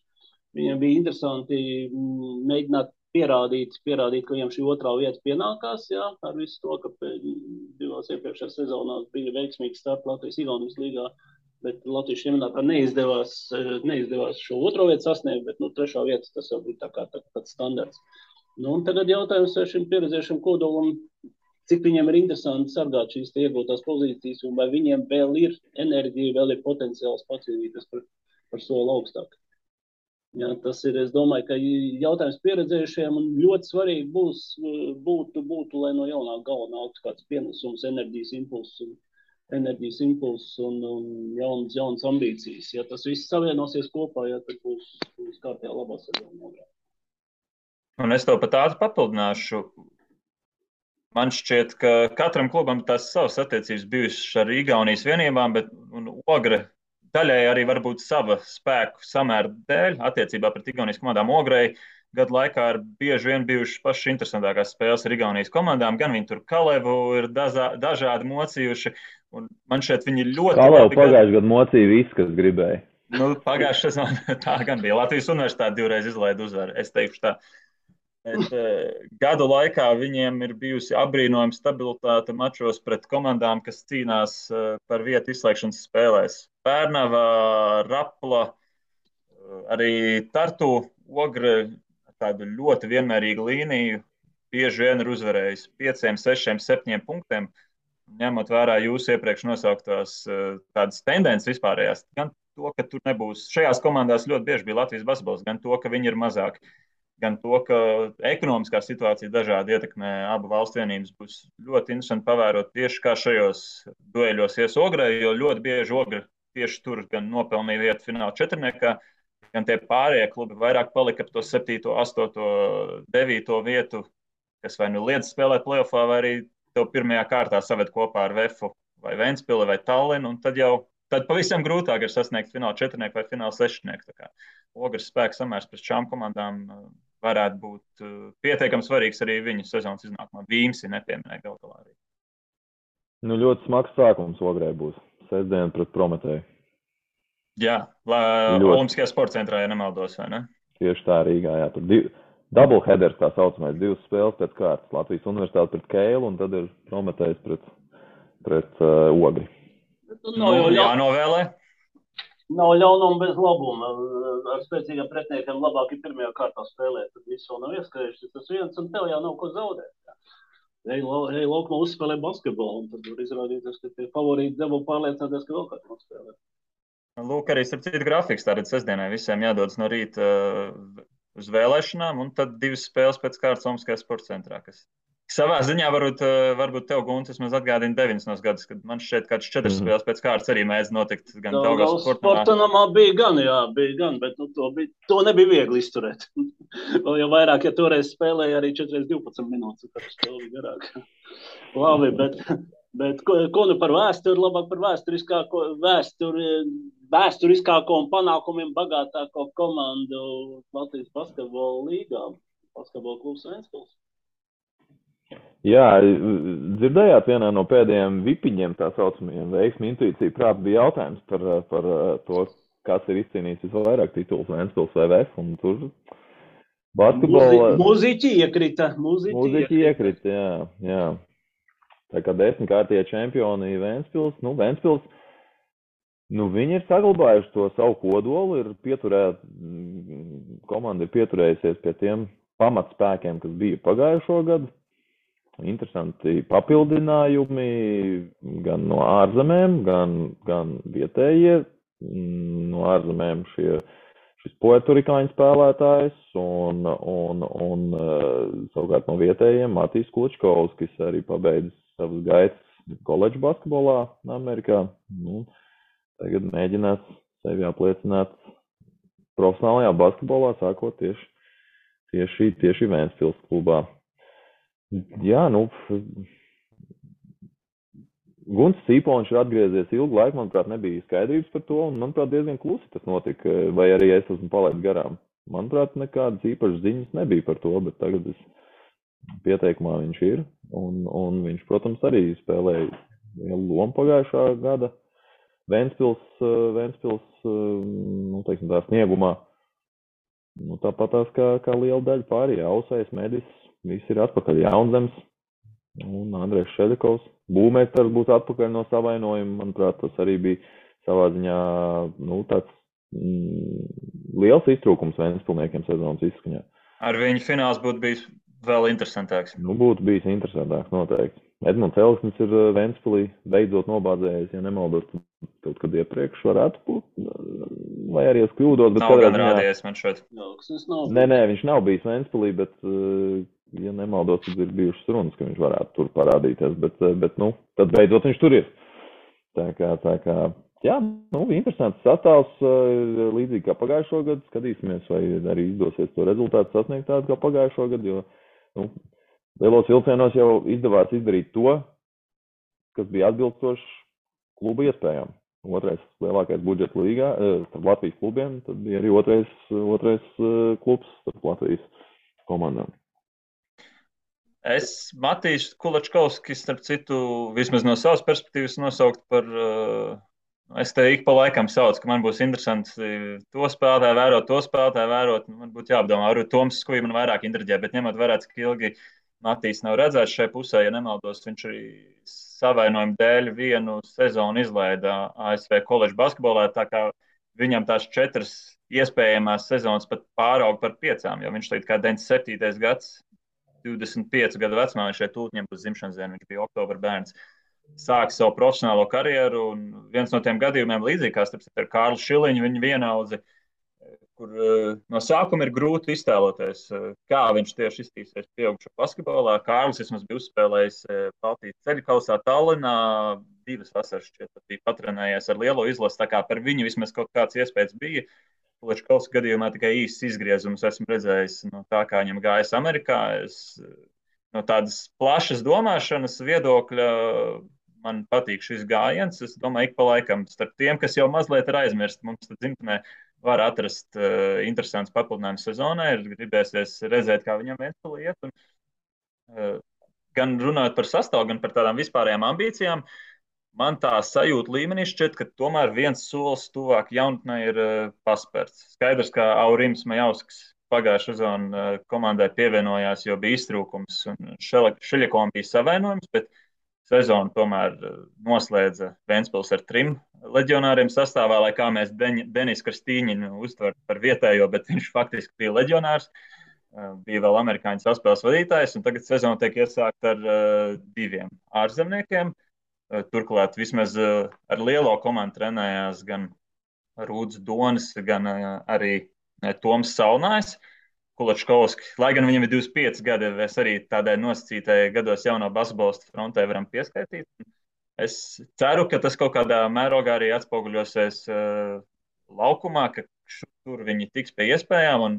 Speaker 2: Viņiem bija interesanti mēģināt pierādīt, ka viņiem šī otrā vieta pienākās, jā, ar visu to, ka divās iepriekšējās sezonās bija veiksmīgi starp Latvijas-Igaunijas līgā, bet Latvijas čempionātā neizdevās šo otro vietu sasniegt, bet trešā vieta tas jau bija tāds standarts. Un tagad jautājums šim pieredzējušam kodolam, cik viņiem ir interesanti sargāt šīs iegūtās pozīcijas, un vai viņiem vēl ir enerģija, vēl ir potenciāls pacīnīties par soli augstāk. Jā, tas ir, es domāju, ka jautājums pieredzējušiem un ļoti svarīgi būtu, lai no jaunā galva nāktu kāds pienesums, enerģijas impulss un jaunas ambīcijas. Ja tas viss savienosies kopā, ja tad būs kārtībā labā sezona.
Speaker 1: Un es tev pat ātri papildināšu. Man šķiet, ka katram klubam tās savas attiecības bijušas ar Igaunijas vienībām, bet Ogre daļai arī varbūt sava spēku samēra dēļ attiecībā pret Igaunijas komandām. Ogrei gadu laikā ir bieži vien bijušas pašas interesantākās spēles ar Igaunijas komandām. Gan viņi tur Kalevu ir dažādi mocījuši, un man šķiet viņi ļoti
Speaker 3: Kalevu pagājušajā gadu mocīja viss, kas gribēja.
Speaker 1: Pagājušajā sezonā tā gan bija. Latvijas universitāte 2 reizes izlaida uzvaru, es teikšu tā. Bet gadu laikā viņiem ir bijusi apbrīnojama stabilitāte mačos pret komandām, kas cīnās par vietu izslēgšanas spēlēs. Pērnava, Rapla, arī Tartu Ogre tādu ļoti vienmērīgu līniju bieži vien ir uzvarējis 5, 6, 7 punktiem, ņemot vērā jūsu iepriekš nosauktās tādas tendences vispārējās. Gan to, ka tur nebūs šajās komandās ļoti bieži bija Latvijas basketbols, gan to, ka viņi ir mazāki. Gan to, ka ekonomiskā situācija dažādi ietekmē abu valstu vienības, būs ļoti interesanti pavērot tieši kā šajos dueļos ies Ogrei, jo ļoti bieži Ogre tieši tur gan nopelnīja vietu fināla četrniekā, gan tie pārējie klubi vairāk palika ap to 7., 8., 9. vietu, kas vai liedz spēlēt playoffā, vai arī tev pirmajā kārtā saved kopā ar Vefu vai Ventspili vai Tallinu, un tad pavisam grūtāk ir sasniegt fināla četrnieku vai fināla sešnieku. Ogres spēks samērs pret šām komandām varētu būt pietiekami svarīgs arī viņu sezonas iznākumā. Vīmsi nepieminēja galu galā arī.
Speaker 3: Ļoti smags sākums Ogrei būs. Sestdien pret Prometēju.
Speaker 1: Jā, Olimpiskajā sporta centrā, ja nemaldos, vai ne?
Speaker 3: Tieši tā Rīgā, jā. Tur doubleheaders, tā saucamais, 2 spēles pēc kārtas. Latvijas universitāte pret Keilu un tad ir Prometējs pret Ogri.
Speaker 1: Jānovēlē.
Speaker 2: Nav ļaunuma bez labuma. Ar spēcīgiem pretiniekiem labāk ir pirmajā kārtā spēlēt. Tad viss vēl nav ieskrējuši. Tas viens un tev jau nav ko zaudēt. Ej laukumā uzspēlē basketbolu. Un tad var izrādīties, ka tie favorīti deva pārliecināties, ka vēl kāds nospēlē.
Speaker 1: Lūk, arī starp citu grafiks. Tātad sestdienai visiem jādodas no rīta uz vēlēšanām. Un tad 2 spēles pēc kārtas Omaskajā sporta centrā, kas savā ziņā varbūt tev, Gunts, vismaz atgādina 90. gadus, kad man šķiet kāds 4 spēles pēc kārtas arī mēdz notikt gan Daugavas
Speaker 2: sporta namā bija gan, bet to nebija viegli izturēt. Vēl jau vairāk, ja toreiz spēlēja arī 4x12 minūtes, tad spēle bija garāka. Labi, bet ko nu par vēsturi, labāk par vēsturiskāko un panākumiem bagātāko komandu Latvijas basketbola līgā, basketbola klubs Ventspils.
Speaker 3: Jā, dzirdējāt vienā no pēdējiem vipiņiem, tā saucamajiem veiksmi, intuīcija, prāt, bija jautājums par to, kas ir izcīnījis visvairāk tituls Ventspils VVF, un tur basketbola...
Speaker 2: Mūziķi iekrita,
Speaker 3: jā. Tā kā 10-kārtie čempioni Ventspils, viņi ir saglabājuši to savu kodolu, komanda ir pieturējusies pie tiem pamatspēkiem, kas bija pagājušo gadu. Interesanti papildinājumi gan no ārzemēm, gan vietējie. No ārzemēm šis puertorikāņu spēlētājs un savukārt no vietējiem Matīs Klučkovs, kas arī pabeidz savas gaitas koledžu basketbolā Amerikā. Tagad mēģinās sevi apliecināt profesionālajā basketbolā, sākot tieši Ventspils klubā. Jā, Gunts Cīpoņš ir atgriezies ilgu laiku, manuprāt, nebija skaidrības par to, un, manuprāt, diezgan klusi tas notika, vai arī es esmu palaidis garām. Manuprāt, nekādas īpašas ziņas nebija par to, bet tagad pieteikumā viņš ir, un viņš, protams, arī spēlēja lielu lomu pagājušā gada Ventspils, teiksim tā, sniegumā. Tāpatās kā liela daļa pārējie, Ausais, Medis, visi ir atpakaļ, Jaunzems un Andrejs Šedekovs. Būmēstars būs atpakaļ no savainojuma. Manuprāt, tas arī bija savā ziņā tāds liels iztrūkums Ventspilniekiem sezonas izskaņā.
Speaker 1: Ar viņu fināls būtu bijis vēl interesantāks.
Speaker 3: Būtu bijis interesantāks, noteikti. Edmunds Elksnis ir Ventspilī beidzot nobādzējies, ja nemaldos, kaut kad iepriekš varētu būt, vai arī es kļūdos. Bet
Speaker 1: nav gan rādījies man šeit.
Speaker 3: Nē, viņš nav bijis Ventspilī, bet, ja nemaldos, tad ir bijušas runas, ka viņš varētu tur parādīties, bet tad beidzot viņš tur ir. Tā kā, jā, interesants sastāvs, līdzīgi kā pagājušo gadu, skatīsimies, vai arī izdosies to rezultātu sasniegt tādu kā pagājušo gadu, jo, lielos vilcienos jau izdevās izdarīt to, kas bija atbilstoši kluba iespējām. Otrais lielākais budžets līgā starp Latvijas klubiem, tad bija arī otrais klubs starp Latvijas komandām.
Speaker 1: Es Matīs Kulačkovskis, starp citu, vismaz no savas perspektīvas nosaukt par, es te ik pa laikam saucu, ka man būs interesanti to spēlētāju vērot, man būtu jāapdomā, varbūt Toms Skuji man vairāk intriģē, bet ņemot vērā, cik ilgi Matīs nav redzēts šai pusē, ja nemaldos, viņš arī savainojumu dēļ vienu sezonu izlaida ASV koledžu basketbolā, tā kā viņam tās 4 iespējamās sezonas pat pāraug par 5, jo viņš tagad kā 97. gads, 25 gadu vecumā, viņš šeit tūtņiem būs dzimšanas diena, viņš bija oktobra bērns, sāk savu profesionālo karjeru, un viens no tiem gadījumiem līdzīgi kā starp ar Kārlu Šiliņu, viņa vienaudzi, kur no sākuma ir grūti iztēloties, kā viņš tieši iztīsies pieaugšo basketbolā. Kārlis vismaz bija uzspēlējis Baltijas ceļu kausā Tallinā, 2 vasaras šķiet, bija patrenējies ar lielo izlasi, tā kā par viņu vismaz kaut kāds iespējas bija. Kulačkovs gadījumā tikai īsts izgriezums esmu redzējis no tā, kā viņam gājas Amerikā. No tādas plašas domāšanas viedokļa man patīk šis gājiens. Es domāju, ik pa laikam starp tiem, kas jau mazliet ir aizmirst, mums tad dzimtenē var atrast interesants papildinājums sezonai, ir gribēsies redzēt, kā viņam Ventspilī iet. Gan runājot par sastāvu, gan par tādām vispārējām ambīcijām, man tā sajūta līmenī šķiet, ka tomēr viens solis tuvāk jaunatnē ir paspērts. Skaidrs, ka Aurims Majausks pagājušā sezonā komandai pievienojās, jo bija iztrūkums un Šeļakovam bija savainojums, bet sezonu tomēr noslēdza Ventspils ar 3 leģionāriem sastāvā, lai kā mēs Denis Kristīņinu uztver par vietējo, bet viņš faktiski bija leģionārs. Bija vēl amerikāņu saspēles vadītājs, un tagad sezona tiek iesākta ar 2 ārzemniekiem. Turklāt vismaz ar lielo komandu trenējās gan Rūds Donis, gan arī Toms Salnājs. Kulačkovski, lai gan viņam ir 25 gadi, es arī tādai nosacītai gados jauno basketbolistu frontē varam pieskaitīt. Es ceru, ka tas kaut kādā mērogā arī atspoguļosies laukumā, ka tur viņi tiks pie iespējām, un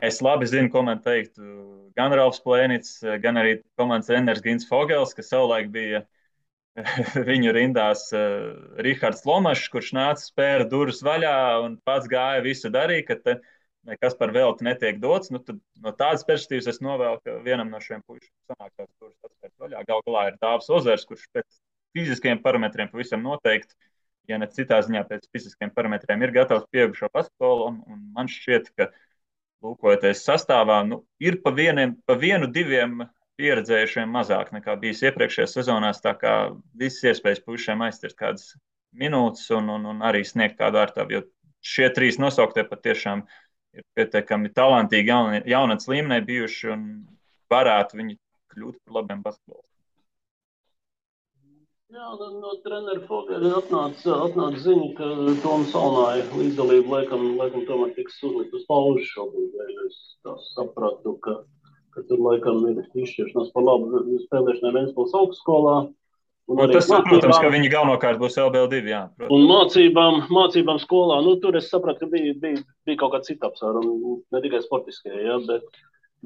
Speaker 1: es labi zinu, ko man teikt gan Ralfs Plēnits, gan arī komandas treneris Gins Fogels, kas savulaik bija viņu rindās Rihards Lomašs, kurš nāca spēra durvis vaļā un pats gāja visu darīja, ka te nekas par velti netiek dots. Nu, tad, no tādas perspektīvas es novēlu, ka vienam no šiem puišiem sanāk tās durvis atspērt vaļā. Gal galā ir Dāvs Ozers, kurš pēc fiziskiem parametriem pavisam noteikti, ja ne citā ziņā pēc fiziskiem parametriem, ir gatavs pieaugušo basketbolu, un man šķiet, ka lūkojoties sastāvā, ir pa vienu, 2 pieredzējušiem mazāk nekā bijis iepriekšējās sezonās, tā kā visas iespējas puišiem aiztirt kādas minūtes un arī sniegt kādu ārtāvu, jo šie 3 nosauktie patiešām ir pietiekami talantīgi jaunatnes līmenī bijuši un varētu viņi kļūt par labiem basketbolistiem.
Speaker 2: Jā, no trenera Fogela atnāca ziņa, ka Toms Salnāja līdzdalība laikam tomēr tiks uzlikt uz pauzi šobrīd. Es sapratu, ka tur laikam ir izšķiršanās par labu spēlēšanai Ventspils augstskolā.
Speaker 1: Tas saprotams, ka viņi galvenokārt būs LBL2, jā. Protams.
Speaker 2: Un mācībām skolā, tur es sapratu, ka bija kaut kāda cita apsvēruma, ne tikai sportiskie, jā,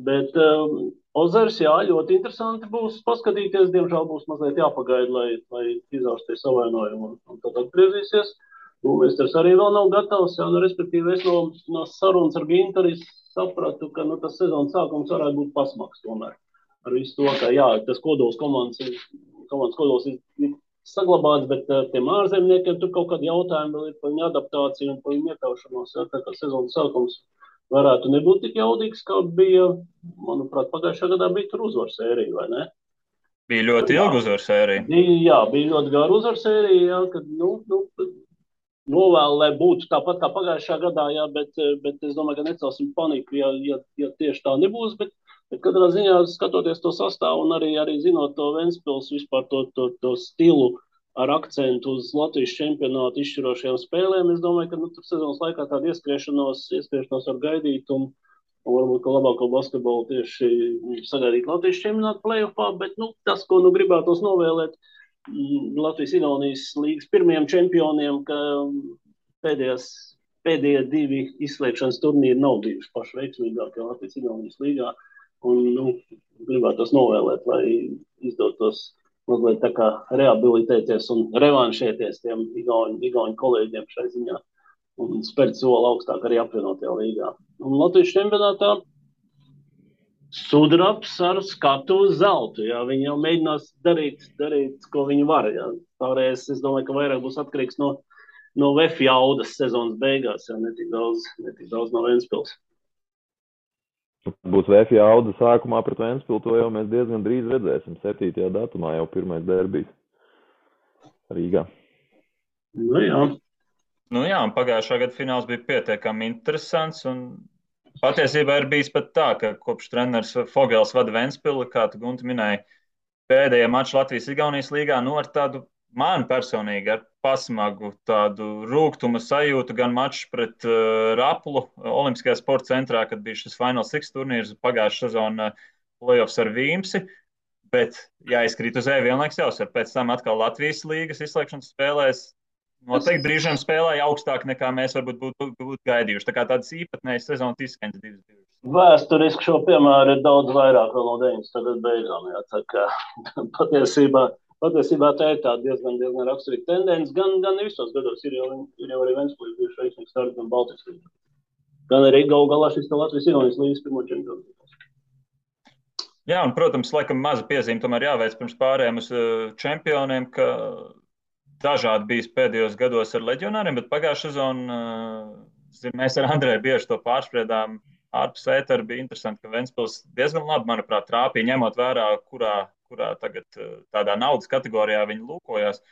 Speaker 2: bet Ozers, jā, ļoti interesanti būs paskatīties, diemžēl būs mazliet jāpagaida, lai izaursties savainojumu un tad atgriezīsies. Mēs arī vēl nav gatavs, jā, respektīvi es no sarunas ar Gintaru sapratu, ka tas sezonas sākums varētu būt pasmaks tomēr. Ar visu to, ka jā, tas kodols komandas kodols ir saglabāts, bet tiem ārzemniekiem tur kaut kādi jautājumi vēl ir par viņu adaptāciju un par viņu iekļaušanos, jā, tā kā sezonas sākums varētu nebūt tik jaudīgs, kā bija, manuprāt, pagājušā gadā bija tur uzvaru sērija, vai ne?
Speaker 1: Bija ļoti ilga uzvaru sērija.
Speaker 2: Jā, bija ļoti gara uzvaru sērija, jā, kad, novēlu, lai būtu tāpat kā pagājušā gadā, jā, bet es domāju, ka necelsim paniku, ja tieši tā nebūs, bet katrā ziņā skatoties to sastāvu un arī zinot to Ventspils vispār to stilu ar akcentu uz Latvijas čempionātu izšķirošajām spēlēm, es domāju, ka tur sezonas laikā tādu ieskriešanos var gaidīt un varbūt, ka labāko basketbolu tieši sagaidīt Latvijas čempionātu play-offā, bet tas, ko gribētos novēlēt Latvijas-Igaunijas līgas pirmajiem čempioniem, ka pēdējie 2 izslēgšanas turnīri nav bijuši paši veiksmīgākie Latvijas-Igaunijas līgā. Un gribētos novēlēt, lai izdotos mazliet tā kā rehabilitēties un revanšēties tiem igauņu kolēģiem šai ziņā un spērt soli augstāk arī apvienotajā līgā. Un Latvijas čempionātā sudrabs ar skatu uz zeltu. Jā. Viņi jau mēģinās darīt, ko viņi var. Jā. Pārējais, es domāju, ka vairāk būs atkarīgs no VF jaudas sezonas beigās, jā, netik daudz no Ventspils.
Speaker 3: Būs VF jauda sākumā pret Ventspilu, to jau mēs diezgan drīz redzēsim. 7. datumā jau pirmais derbijs Rīgā.
Speaker 2: Jā,
Speaker 1: un pagājušā gada fināls bija pietiekami interesants, un patiesībā ir bijis pat tā, ka kopš treneris Fogels vada Ventspilu, kā tu, Gunti, minēji, pēdējie mači Latvijas-Igaunijas līgā, ar tādu man personīgi ar pasmagu tādu rūgtuma sajūtu, gan mačs pret Raplu Olimpiskajā sporta centrā, kad bija šis Final Six turnīrs, pagājušā sezona playoffs ar Vīmsi, bet jāizkrīt uz vienlaiks jāuzsver. Pēc tam atkal Latvijas līgas izslēgšanas spēlēs noteikti brīžiem spēlēja augstāk nekā mēs varbūt būtu gaidījuši. Tā kā tādas īpatnējas sezonas izskaņas 2.
Speaker 2: Vēsturiski šo piemēru ir daudz vairāk vēl no 90. gadu beigām. Jā, tā kā patiesībā tā ir tā diezgan raksturīga tendence. Gan visos gados ir jau arī Ventspils bijuši veiksmīgi starti gan Baltijas līgā. Gan arī galu galā šis Latvijas-Igaunijas līgas pirmo čempionu.
Speaker 1: Jā, un, protams, laikam maza piezīme tomēr jāveic pirms pārējiem uz čempioniem, ka dažādi bijis pēdējos gados ar leģionāriem, bet pagājušā sezona, mēs ar Andreju bieži to pārspriedām, ārpus ētera bija interesanti, ka Ventspils diezgan labi, manuprāt, trāpīja, ņemot vērā, kurā tagad tādā naudas kategorijā viņi lūkojās.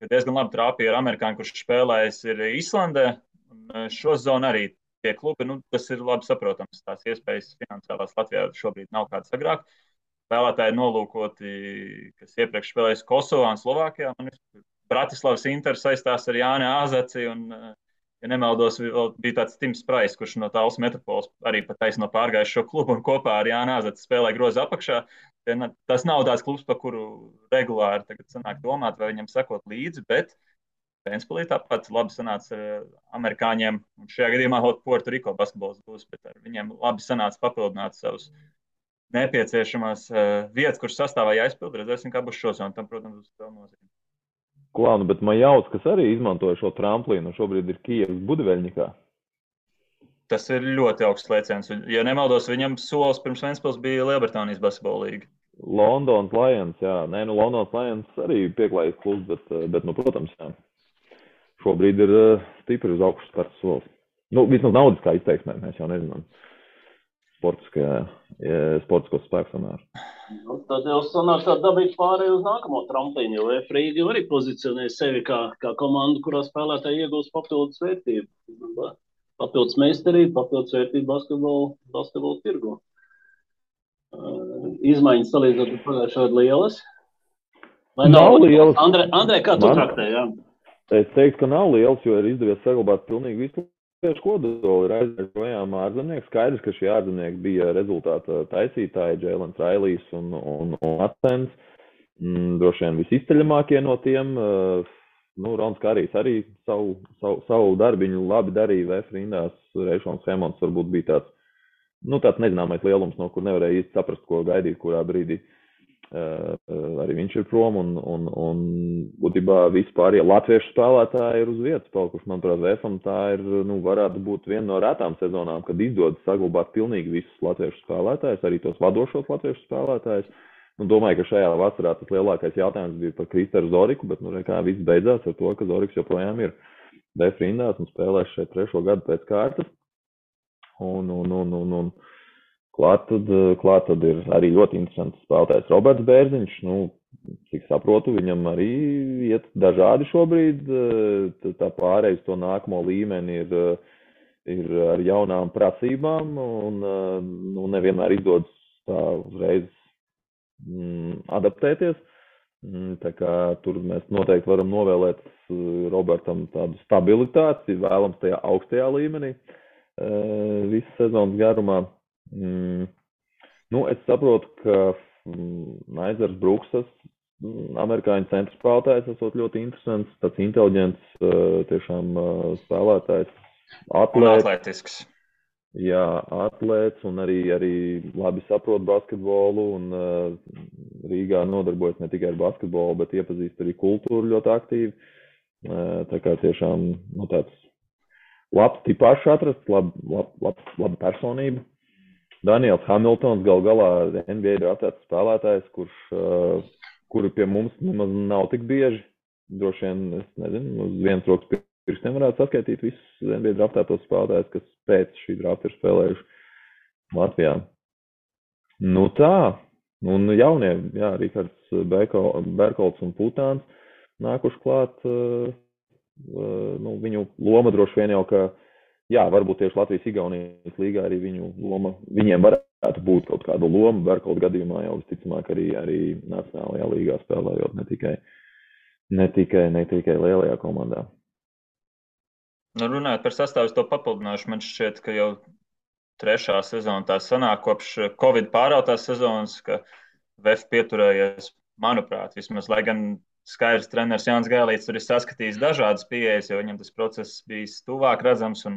Speaker 1: Diezgan labi trāpīja ar amerikāņu, kurš spēlējis ir Islandē. Un šo zonu arī tie klubi, tas ir labi saprotams. Tās iespējas finansiālās Latvijā šobrīd nav kādas agrāk. Spēlētāji nolūkoti, kas iepriekš spēlējis Kosovā un Slovākijā. Bratislavas Inter saistās ar Jāni Āzaci un, ja nemaldos, bija tāds Tims Prais, kurš no Tallas Metropoles arī pat taisno pārgājis šo klubu un kopā ar Jāni Āzaci spēlē groza apakšā. Tas nav tāds klubs, par kuru regulāri tagad sanāk domāt, vai viņam sekot līdzi, bet Ventspilī tāpat labi sanāca ar amerikāņiem, un šajā gadījumā vēl Puerto Rico basketbols būs, bet ar viņiem labi sanāca papildināt savus nepieciešamās vietas, kuras sastāvā jāizpild. Redzēsim, kā būs šos, un tam, protams, būs vēl nozīme.
Speaker 3: Klānu, bet Majauts, kas arī izmantoja šo tramplīnu, šobrīd ir Kijevas Budiveļņikā.
Speaker 1: Tas ir ļoti augsts lēciens. Ja nemaldos, viņam solis pirms Ventspils bija Lielbritānijas basketbola līga.
Speaker 3: Londonas Lions, jā. Londonas Lions arī pieklājīgs klubs, bet protams, jā. Šobrīd ir stipri uz augšu starts solis. Vismaz naudiskā izteiksmē, mēs jau nezinām. Sportiskos spēku samēru.
Speaker 2: Tad jau sanāk tā dabīgi pārēj uz nākamo tramplīnu, jo F-Rīga arī pozicionē sevi kā komandu, kurā spēlētāji iegūst papildus vērtību. Papildus meistarību, papildus vērtību basketbolu tirgu. Izmaiņas salīdzinot ar pagājušo gadu lielas? Vai nav lielas? Andrej, kā tu traktē, jā?
Speaker 3: Es teiktu, ka nav lielas, jo ir izdevies saglabāt pilnīgi visu kodoli. Ir aizvērts projām ārzemnieki. Skaidrs, ka šie ārzemnieki bija rezultāta taisītāji, Džēlens Railijs un Atens. Droši vien visizceļamākie no tiem. Rons Karijs arī savu darbiņu labi darīja VF rindās. Reišons Hemonts varbūt bija tāds nezināmais lielums, no kur nevarēja īsti saprast, ko gaidīt, kurā brīdī. Arī viņš ir prom un būtībā vispār, ja latviešu spēlētāji ir uz vietas palikuši, manuprāt, VF-am tā ir, varētu būt viena no retām sezonām, kad izdodas saglabāt pilnīgi visus latviešu spēlētājus, arī tos vadošos latviešu spēlētājus. Domāju, ka šajā vasarā tas lielākais jautājums bija par Kristeru Zoriku, bet kā viss beidzās ar to, ka Zoriks joprojām ir VF rindās un spēlēs šeit 3. gadu pēc kārtas. Klāt tad ir arī ļoti interesants spēlētājs Roberts Bērziņš. Cik saprotu, viņam arī iet dažādi šobrīd. Tā pārējais to nākamo līmeni ir ar jaunām prasībām un nevienmēr izdodas tā uzreiz adaptēties. Tā kā tur mēs noteikti varam novēlēt Robertam tādu stabilitāti, vēlams tajā augstajā līmenī visu sezonas garumā. Es saprotu, ka Naizers Bruksas, amerikāņu centra spēlētājs, esot ļoti interesants, tāds inteliģents tiešām spēlētājs,
Speaker 1: atletisks.
Speaker 3: Jā, atlēts un arī labi saprot basketbolu un Rīgā nodarbojas ne tikai ar basketbolu, bet iepazīst arī kultūru ļoti aktīvi. Tā kā tiešām tāds labs tipāšs atrasts, laba personība. Daniels Hamiltons gal galā NBA draftēts spēlētājs, kuri pie mums nemaz nav tik bieži. Droši vien, es nezinu, uz vienas rokas pirkstiem varētu saskaitīt visus NBA draftētos spēlētājus, kas pēc šī drafta ir spēlējuši Latvijā. Tā. Un jaunie, jā, Rikards Berkolts un Putāns nākuši klāt. Viņu loma droši vien jau, ka jā, varbūt tieši Latvijas-Igaunijas līgā arī viņiem varētu būt kaut kāda loma. Berkolta gadījumā jau visticamāk arī nacionālajā līgā spēlējot, ne tikai lielajā komandā.
Speaker 1: Runājot par sastāvu, to papildināšu, man šķiet, ka jau 3. sezona tā sanāk kopš Covid pārautās sezonas, ka VF pieturējies, manuprāt, vismaz, lai gan skaidrs treneris Jānis Gailīts tur ir saskatījis dažādas pieejas, jo viņam tas process bijis tuvāk redzams, un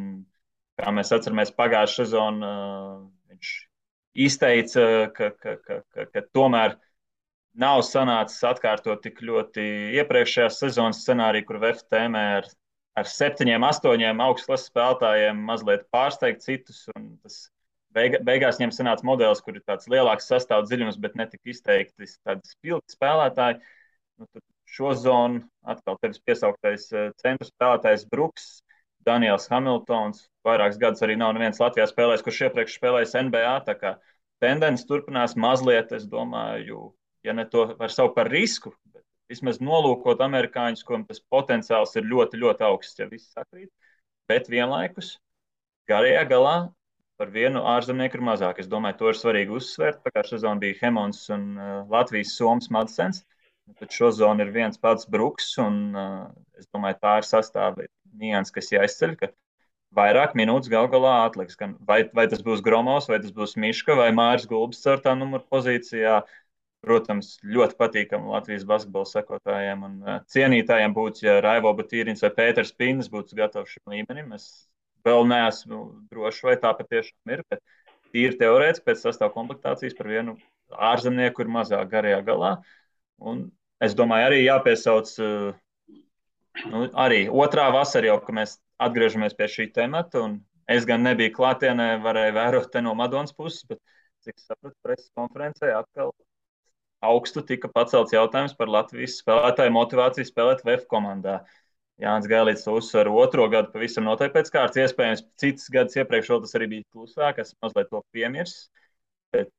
Speaker 1: kā mēs atceramies pagājušā sezonu, viņš izteica, ka tomēr nav sanācis atkārtot tik ļoti iepriekšējās sezonas scenāriju, kur VF tēmē ar 7, 8 augstklases spēlētājiem mazliet pārsteigt citus, un tas beigās viņiem sanāca modelis, kur ir tāds lielāks sastāvu dziļums, bet netik izteikti tādi spilgti spēlētāji. Šo zonu atkal tevis piesauktais centru spēlētājs Bruks Daniels Hamiltons. Vairākus gadus arī nav neviens Latvijā spēlējis, kurš iepriekš spēlējis NBA. Tā kā tendence turpinās mazliet, es domāju, ja ne to var saukt par risku, bet vismaz nolūkot amerikāņus, kuram tas potenciāls ir ļoti, ļoti augsts, ja viss sakrīt. Bet vienlaikus garajā galā par vienu ārzemnieku ir mazāk. Es domāju, to ir svarīgi uzsvērt. Pagājušā sezona bija Hemons un Latvijas Somas Madsens. Tad šo zonu ir viens pats Bruks, un es domāju, tā ir sastāvdaļa nianses, kas jāizceļ, ka vairāk minūtes gal galā atliks. Vai tas būs Gromos, vai tas būs Miška, vai Māris Gulbis 4. numura pozīcijā. Protams, ļoti patīkami Latvijas basketbola sekotājiem un cienītājiem būtu, ja Raivo Batīrins vai Pēters Pīnis būtu gatavs šim līmenim. Es vēl neesmu drošs, vai tā patiešām ir, bet tīri teorētiski pēc sastāv komplektācijas par vienu ārzemnieku ir mazāk garajā galā. Un es domāju, arī jāpiesauc arī otrā vasara jau, ka mēs atgriežamies pie šī temata, un es gan nebiju klātienē, varēju vērot te no Madonas puses, bet cik sapratu preses konferencē atkal augstu tika pacelts jautājums par Latvijas spēlētāju motivāciju spēlēt VF komandā. Jānis Gailīts to uzsver otro gadu pavisam noteikti pēc kārtas. Iespējams, citas gadus iepriekš vēl tas arī bija klusāk, es mazliet to piemirsu. Bet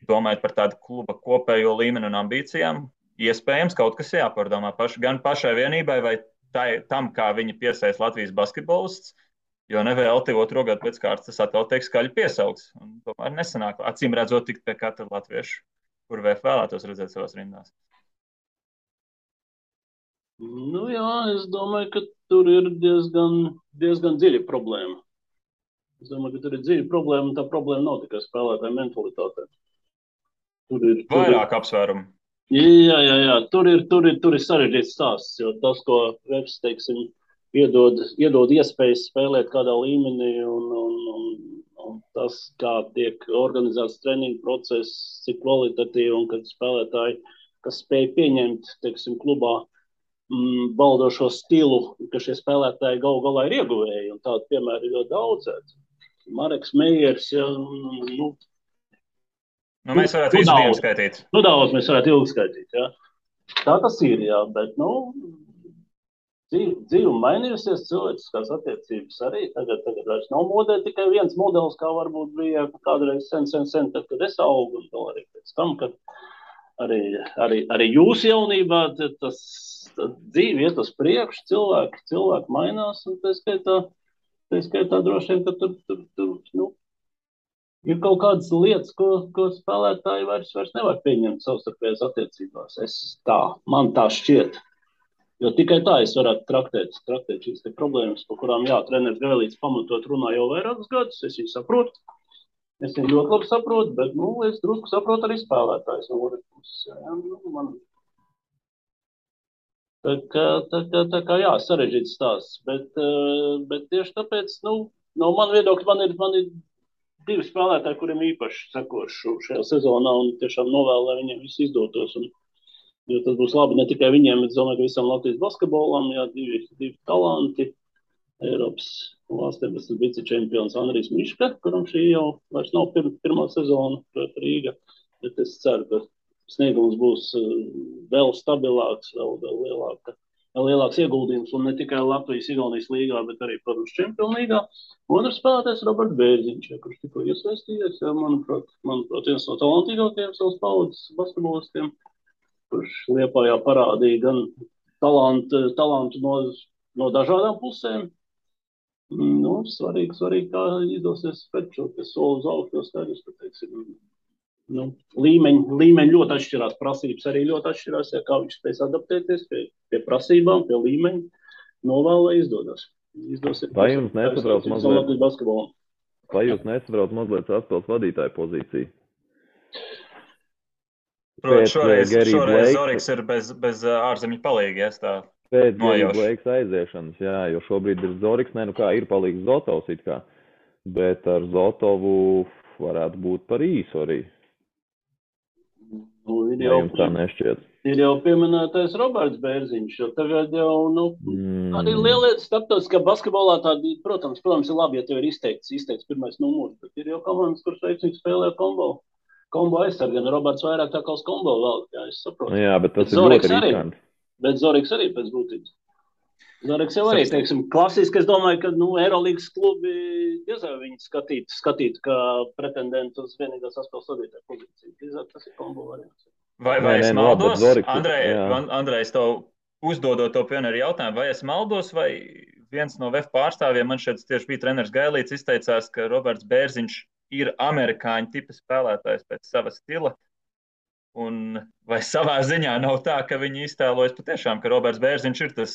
Speaker 1: domājot par tādu kluba kopējo līmeni un ambīcijām, iespējams, kaut kas jāpārdomā gan pašai vienībai vai tam, kā viņi piesaist Latvijas basketbolists, jo nevēlti otro gadu pēc kārtas tas atkal tiek skaļi piesaukts. Un tomēr nesanāk, acīm redzot, tikt pie katra latviešu, kur VF vēlētos redzēt savās rindās.
Speaker 2: Nu jā, es domāju, ka tur ir diezgan dziļa problēma. Es domāju, ka tur ir dziļa problēma, un tā problēma nav tikai spēlētāja mentalitāte.
Speaker 1: Vairāk apsvērumu.
Speaker 2: Jā. Tur ir sarežģīts stāsts, jo tas, ko VF, teiksim, iedod iespējas spēlēt kādā līmenī un tas, kā tiek organizēts treniņu process, cik kvalitatīvi un kad spēlētāji, kas spēj pieņemt, teiksim, klubā baldošo stilu, ka šie spēlētāji galu galā ir ieguvēji, un tādu piemēru ir ļoti daudz. Mareks Meijers, ja,
Speaker 1: mēs varētu visu dienu skaitīt.
Speaker 2: Daudz mēs varētu ilgi skaitīt, jā. Tā tas ir, jā, bet, dzīve mainījusies, cilvēciskās attiecības arī. Tagad vairs nav modē tikai viens modelis, kā varbūt bija kādreiz sen, tad, kad es augu, un vēl arī pēc tam, kad arī jūsu jaunībā tas dzīve iet uz priekšu, cilvēki mainās, un tā skaitā droši vien, ka tur ir kaut kādas lietas, ko spēlētāji vairs nevar pieņemt savstarpējās attiecībās. Man tā šķiet. Jo tikai tā es varētu traktēt šīs problēmas, par kurām treneris Gailīts pamatot runā jau vairākus gadus. Es viņu saprotu. Es viņu ļoti labi saprotu, bet es drusku saprotu arī spēlētājs no otras puses. Tā kā jā, sarežģīts stāsts. Bet tieši tāpēc, no man viedokļa, man ir divi spēlētāji, kuriem īpaši sekošu šajā sezonā un tiešām novēlu, lai viņiem viss izdotos. Jo tas būs labi ne tikai viņiem, bet domāju, ka visam Latvijas basketbolam, divi talanti. Eiropas valstī tas vicečempions Andrijs Miška, kuram šī jau vairs nav pirmā sezona pret Rīga. Bet es ceru, ka sniegums būs vēl stabilāks, vēl lielāks ieguldījums, un ne tikai Latvijas-Igaunijas līgā, bet arī, protams, Čempionu līgā. Otrs spēlētājs Roberts Bērziņš, kurš tikko iesaistījies, manuprāt, viens no talantīgākajiem savas paudzes basketbolistiem, kurš Liepājā parādīja gan talantu no dažādām pusēm. Svarīgi, kā izdosies spēt šo soli uz augšu, jo skaidrs, ka, teiksim, līmeņi ļoti atšķirās, prasības arī ļoti atšķirās, kā viņš spēs adaptēties pie prasībām, pie līmeņa, novēl, lai izdosies.
Speaker 3: Vai jums nesatrauc mazliet atspēles vadītāju pozīciju?
Speaker 1: Protams, šoreiz Zoriks ir bez ārzemju palīga,
Speaker 3: pēc Gary Blakes aiziešanas, jā, jo šobrīd ir Zoriks, ir palīgs Zotovs it kā, bet ar Zotovu varētu būt par īsu arī. Jums tā nešķiet?
Speaker 2: Ir jau pieminētais Roberts Bērziņš, jo tagad jau, arī lielietas starptautiskā basketbolā tādi, protams, ir labi, ja tev ir izteikts pirmais numurs, bet ir jau komandas, kuras veiksmīgi spēlē kombo aizsargi, gan Roberts vairāk tā kā uz kombo vēl, jā, es saprotu.
Speaker 3: Jā, bet tas ir ļoti riskanti.
Speaker 2: Bet Zoriks arī pēc būtības. Zoreks jau arī, teiksim, klasiski, es domāju, ka, Eirolīgas klubi diezvēl viņi skatītu kā pretendentu uz vienīgās saspēles vadītāju pozīciju. Drīzāk tas ir kombo variants.
Speaker 1: Vai es maldos? Andrej, tev uzdodot to pionieru jautājumu, vai es maldos, vai viens no VF pārstāvjiem, man šeit tieši bija treneris Gailīts, izteicās, ka Roberts Bērziņš ir amerikāņu tipa spēlētājs pēc sava stila. Un vai savā ziņā nav tā, ka viņi iztēlojas patiešām, ka Roberts Bērziņš ir tas,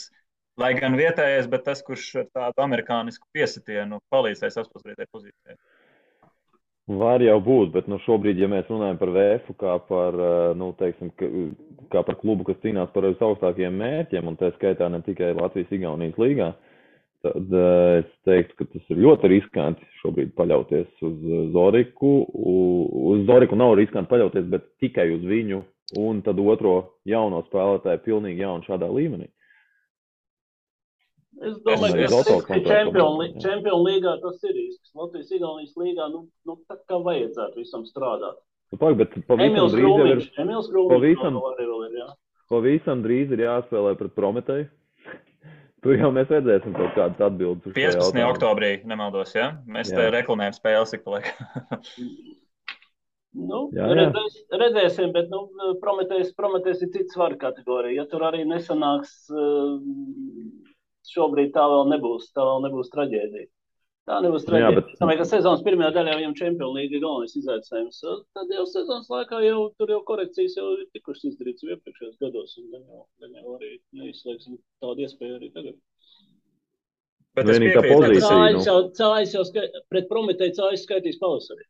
Speaker 1: lai gan vietējais, bet tas, kurš ar tādu amerikānisku piesitienu palīdzēja saspēlētāju pozīcijai?
Speaker 3: Var jau būt, bet šobrīd, ja mēs runājam par VF kā par, teiksim, kā par klubu, kas cīnās par augstākajiem mērķiem, un tā skaitā ne tikai Latvijas-Igaunijas līgā, tad es teiktu, ka tas ir ļoti riskanti šobrīd paļauties uz Zoriku. Uz Zoriku nav riskanti paļauties, bet tikai uz viņu un tad otro jauno spēlētāju pilnīgi jaunu šādā līmenī.
Speaker 2: Es domāju, ka Čempionu līgā tas ir risks. Latvijas-Igaunijas līgā, tā kā vajadzētu visam strādāt.
Speaker 3: Bet
Speaker 2: Emils Krūmiņš
Speaker 3: pavisam drīz ir jāspēlē pret Prometēju. Tur jau mēs redzēsim kaut kādas atbildes.
Speaker 1: 15. oktobrī, nemaldos, ja? Mēs te reklamējam spēles ik pa laikam.
Speaker 2: Redzēsim, bet Prometējs ir cits svaru kategorija. Ja tur arī nesanāks, šobrīd tā vēl nebūs traģēdija. Tā nebūs traģēdija. Es domāju, ka sezonas pirmajā daļā viņam Čempionu līga galvenais izaicinājums. Tad jau sezonas laikā tur jau korekcijas jau ir tikušas izdarītas iepriekšējos gados, un gan jau arī neizslēgsim tādu iespēju arī tagad.
Speaker 1: Bet es piekrītu.
Speaker 2: Cājas jau pret Prometēju Cājas skaitīs pavasarī.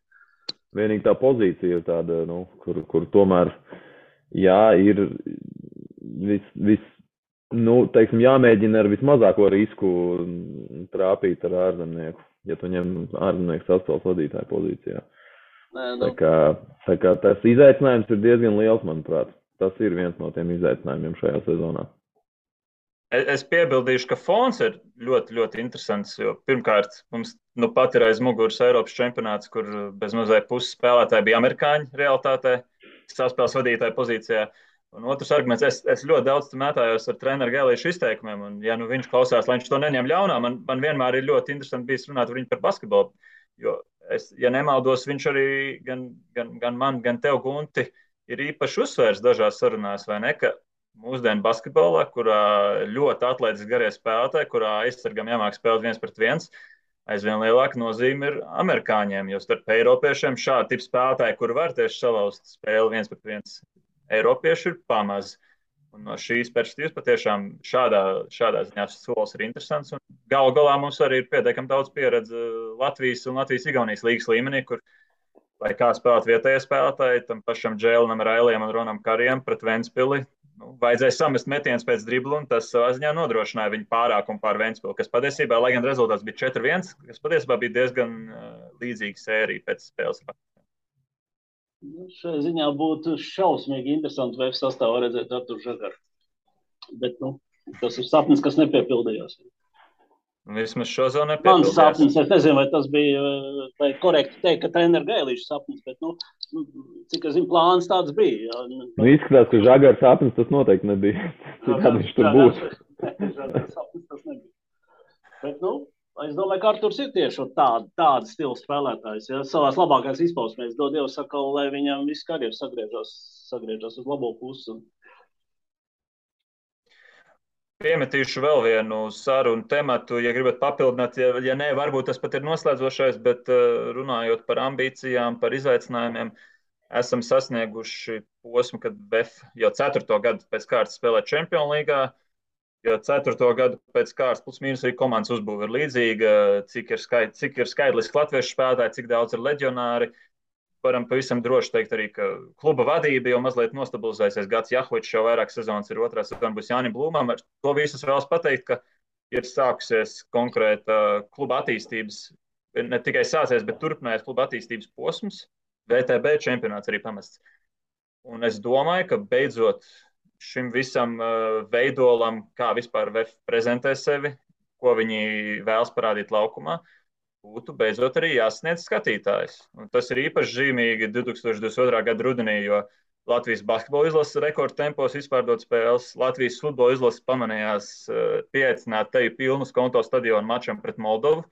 Speaker 3: Vienīgi tā pozīcija ir tāda, kur tomēr, ir teiksim, jāmēģina ar vismazāko risku trāpīt ar ārzemnieku, ja tu ņem ārzemnieku saspēles vadītāju pozīcijā. Tā kā tas izaicinājums ir diezgan liels, manuprāt. Tas ir viens no tiem izaicinājumiem šajā sezonā.
Speaker 1: Es piebildīšu, ka fons ir ļoti, ļoti interesants, jo pirmkārt mums pat ir aiz muguras Eiropas čempionāts, kur bez mazliet puses spēlētāji bija amerikāņi realitātē, saspēles vadītāju pozīcijā. Un otrs arguments, es ļoti daudz mētājos ar treneru Gailīšu izteikumiem, un ja viņš klausās, lai viņš to neņem ļaunā, man vienmēr ir ļoti interesanti bijis runāt ar viņu par basketbolu, jo ja nemaldos, viņš arī gan man, gan tev, Gunti, ir īpaši uzsvērs dažās sarunās, vai ne, ka mūsdienu basketbolā, kurā ļoti atlētiski garie spēlētāji, kurā aizsargam jāmāk spēlēt 1-1, aizvien lielāka nozīme ir amerikāņiem, jo starp eiropiešiem šādi tipi spēlētāji, kuri var tieši salauzt spēli 1-1, eiropieši ir pamaz. Un no šīs perspektīvas patiešām šādā ziņā solis ir interesants. Un galu galā mums arī ir pietiekami daudz pieredze Latvijas un Latvijas-Igaunijas līgas līmenī, kur, lai kā spēlēt vietējie spēlētāji, tam pašam Džēlinam, Railiem un Ronam Karijam pret Ventspili, vajadzēja samest metienus pēc driblu, un tas savā ziņā nodrošināja viņu pārākumu pār Ventspili, kas patiesībā, lai gan rezultāts bija 4-1, kas patiesībā bija diezgan līdzīga sērija pēc spēles.
Speaker 2: Šajā ziņā būtu šausmīgi interesanti VF sastāvā redzēt Arturu Žagaru. Bet, tas ir sapnis, kas nepiepildījās.
Speaker 1: Vismaz šo zonu nepiepildījās.
Speaker 2: Mans sapnis, es nezinu, vai tas bija, vai korekti teikt, ka treneru Gailīša sapnis, bet, cik es zinu, plāns tāds bija.
Speaker 3: Izskatās, ka Žagara sapnis tas noteikti nebija. Citādi viņš tur būtu.
Speaker 2: Žagara sapnis tas nebija. Bet, es domāju, ka Arturs ir tieši tāda stila spēlētājs. Ja? Savās labākās izpausmēs dod Dievu sakalu, lai viņam viss karjeras sagriežas uz labo pusi.
Speaker 1: Piemetīšu vēl vienu sarunu tematu, ja gribat papildināt, ja nē, varbūt tas pat ir noslēdzošais, bet runājot par ambīcijām, par izaicinājumiem, esam sasnieguši posmu, kad VF jau 4. gadu pēc kārtas spēlē Čempionu līgā. Jo 4. gadu pēc kārtas plus mīnus arī komandas uzbūve ir līdzīga, cik ir skaidliski latviešu spēlētāji, cik daudz ir leģionāri. Varam pavisam droši teikt arī, ka kluba vadība jau mazliet nostabilizēsies. Gats Jahovičs jau vairāk sezonas ir, otrā sezona būs Jānim Blūmam. Ar to visus vēlas pateikt, ka ir sākusies konkrēta kluba attīstības, ne tikai sācies, bet turpinājās kluba attīstības posms. VTB čempionāts arī pamests. Un es domāju, ka beidzot šim visam veidolam, kā vispār VF prezentē sevi, ko viņi vēlas parādīt laukumā, būtu beidzot arī jāsniedz skatītājs. Un tas ir īpaši zīmīgi 2022. gada rudenī, jo Latvijas basketbola izlases rekordtempos izpārdot spēles. Latvijas futbola izlases pamanījās pieaicināt teju pilnu konto stadionu mačam pret Moldovu,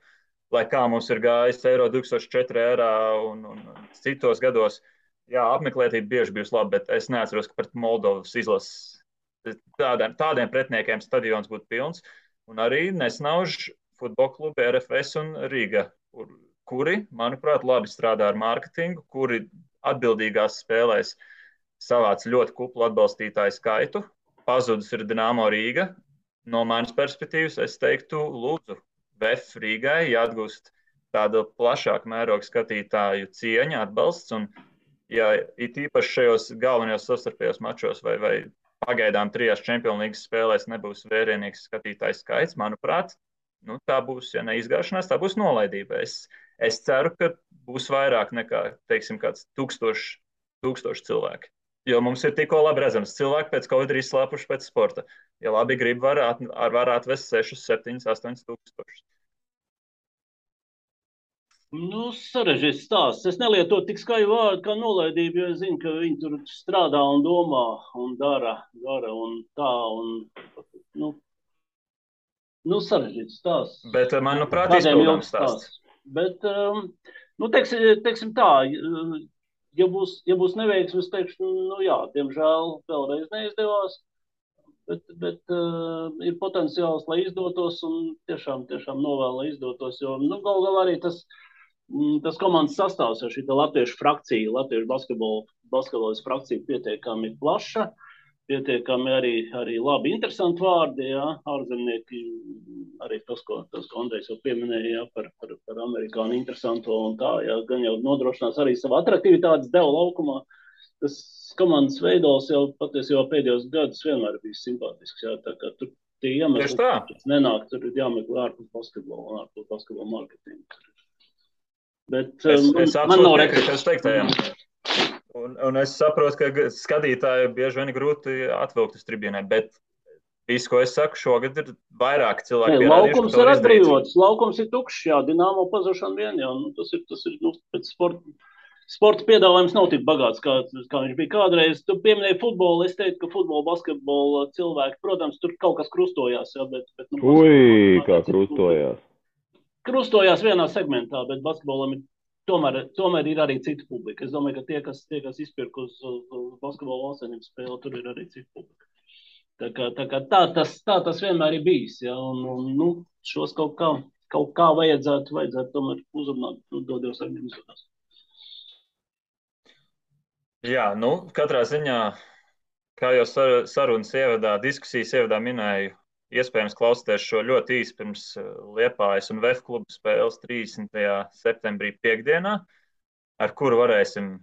Speaker 1: lai kā mums ir gājis Eiro 2004 ērā un citos gados. Jā, apmeklētība bieži bijusi laba, bet es neatceros, ka pret Moldovas izlases tādiem pretiniekiem stadions būtu pilns. Un arī nesnauž futbola klubi RFS un Rīga, kuri, manuprāt, labi strādā ar mārketingu, kuri atbildīgās spēlēs savāc ļoti kuplu atbalstītāju skaitu. Pazudus ir Dinamo Rīga. No manas perspektīvas es teiktu, lūdzu, VF Rīgai jāatgūst tāda plašāka mēroga skatītāju cieņa, atbalsts. Un, ja it īpaši šajos galvenajos savstarpējos mačos vai pagaidām 3 Champions League spēlēs nebūs vērienīgs skatītāju skaits, manuprāt, tā būs, ja neizgāšanās, tā būs nolaidība. Es ceru, ka būs vairāk nekā, teiksim, kāds 1000 cilvēki. Jo mums ir tikko labi redzams, cilvēki pēc Covid ir izslāpuši pēc sporta. Ja labi grib, var atvest 6, 7, 8 tūkstošus.
Speaker 2: Sarežģīts stāsts. Es nelietotu tik skaļu vārdu kā nolaidība, jo es zinu, ka viņi tur strādā un domā un dara un tā. Sarežģīts stāsts.
Speaker 1: Bet, manuprāt, izpildāms stāsts.
Speaker 2: Bet, teiksim tā, ja būs neveiksmes, teikšu, jā, diemžēl vēlreiz neizdevās, bet ir potenciāls, lai izdotos, un tiešām novēl, lai izdotos, jo, galu galā arī tas komandas sastāvs ar šī latviešu frakcija, latviešu basketbolas frakcija pietiekami plaša, pietiekami arī labi interesanti vārdi, jā, ārzemnieki, arī tas, ko Andrejs jau pieminēja, jā, par amerikāņu interesanto un tā, jā, gan jau nodrošinās arī savu atraktivitātes devu laukumā. Tas komandas veidols jau patiesībā pēdējos gadus vienmēr bijis simpātisks, jā, tā kā tur tie iemesli, kas nenāk, tur ir jāmeklē ārpus basketbola un ārpus basketbola marketinga. Bet man nav
Speaker 1: rekrutējumu. Un es saprotu, ka skatītāji bieži vien grūti atvilkt uz tribīnē, bet viss, ko es saku, šogad ir vairāk cilvēki.
Speaker 2: Laukums ir atbrīvots, laukums ir tukšs, jā, Dinamo pazušana vien, jā, tas ir pēc sporta piedāvājums nav tik bagāts, kā viņš bija kādreiz. Tu pieminēji futbolu, es teiktu, ka futbola, basketbola cilvēki, protams, tur kaut kas krustojās, jā, bet
Speaker 3: kā krustojās?
Speaker 2: Krustojās vienā segmentā, bet basketbolam ir tomēr ir arī cita publika. Es domāju, ka tie, kas izpirk uz basketbola valstsvienības spēli, tur ir arī cita publika. Tā tas vienmēr ir bijis, ja, un šos kaut kā vajadzētu tomēr uzrunāt, dodies ar viņiem izrunās.
Speaker 1: Jā, katrā ziņā, kā jau sarunas diskusijas ievadā minēju, iespējams klausīties šo ļoti īsi pirms Liepājas un VF klubu spēles 30. septembrī piekdienā, ar kuru varēsim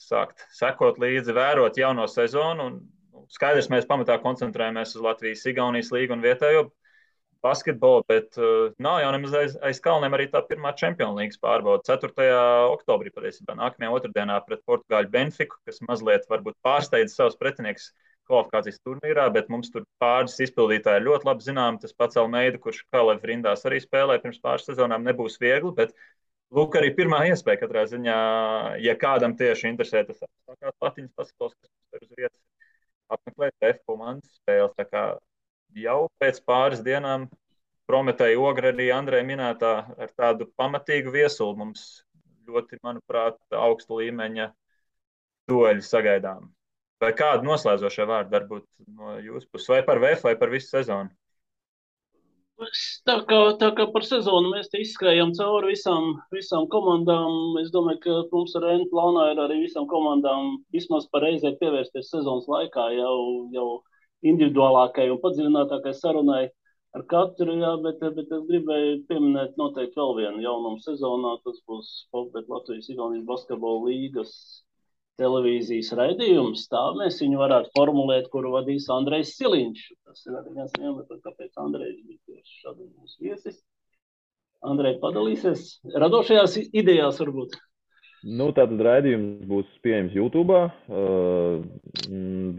Speaker 1: sākt sekot līdzi, vērot jauno sezonu. Un skaidrs, mēs pamatā koncentrējamies uz Latvijas, Igaunijas līgu un vietējo basketbolu, bet nav jau nemaz aiz kalniem arī tā pirmā Champions League pārbauda 4. oktobrī, patiesībā nākamajā otrdienā pret Portugāļu Benfiku, kas mazliet varbūt pārsteidz savus pretinieks kvalifikācijas turnīrā, bet mums tur pāris izpildītāji ļoti labi zinām. Tas pats Almeida, kurš Kalev rindās arī spēlē pirms pāris sezonām, nebūs viegli, bet lūk arī pirmā iespēja katrā ziņā, ja kādam tieši interesē tas apstākās Latvijas basketbols, kas mums ir uz vietas, apmeklēt F komandas spēles. Tā kā jau pēc pāris dienām Prometēja Ogra arī Andreja minētā ar tādu pamatīgu viesulu mums ļoti, manuprāt, augsta līmeņa dueļu sagaidām. Vai kādu noslēdzošie vārdi varbūt no jūsu puses, vai par VF, vai par visu sezonu?
Speaker 2: Tā kā par sezonu mēs te izskrējam cauri visām komandām, es domāju, ka mums ar N plānā ir arī visām komandām vismaz pareizē pievērsties sezonas laikā jau individuālākai un padziļinātākai sarunai ar katru, jā, bet es gribēju pieminēt noteikti vēl vienu jaunumu sezonā, tas būs Latvijas Igaunijas basketbola līgas televīzijas raidījums, tā mēs viņu varētu formulēt, kuru vadīs Andrejs Siliņš. Tas ir arī viens iemesls, kāpēc Andrejs bija tieši šādi mūsu viesis. Andrej, padalīsies radošajās idejās varbūt?
Speaker 3: Tātad raidījums būs pieejams YouTube,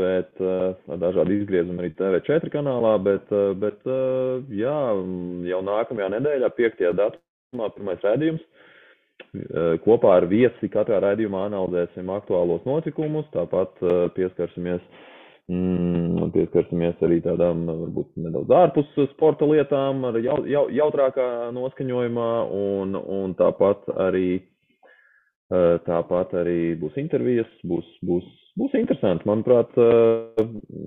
Speaker 3: bet ar dažādu izgriezumu arī TV4 kanālā, bet jā, jau nākamajā nedēļā, 5. datumā, pirmais raidījums. kopā ar viesi katrā raidījumā analizēsim aktuālos notikumus, tāpat pieskarsimies arī tādām varbūt nedaudz ārpus sporta lietām ar jautrākā noskaņojumā un tāpat arī būs intervijas, būs interesanti. Manuprāt,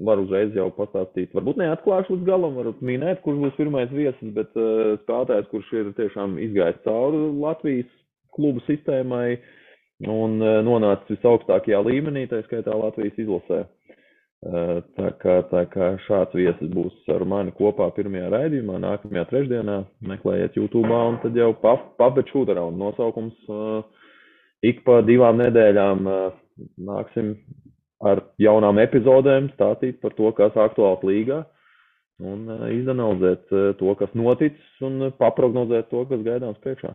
Speaker 3: var uzreiz jau pastāstīt, varbūt neatklāšu līdz galam, varbūt minēt, kurš būs pirmais viesis, bet spēlētājs, kurš ir tiešām izgājis cauri Latvijas klubu sistēmai un nonācis visaugstākajā līmenī, tā skaitā Latvijas izlasē. Tā kā šāds viesis būs ar mani kopā pirmajā raidījumā, nākamajā trešdienā, meklējiet YouTube'ā un tad jau Puppet Shoot Around nosaukums. Ik pa 2 nedēļām nāksim ar jaunām epizodēm stāstīt par to, kas aktuāls līgā un izanalizēt to, kas noticis un paprognozēt to, kas gaidāms priekšā.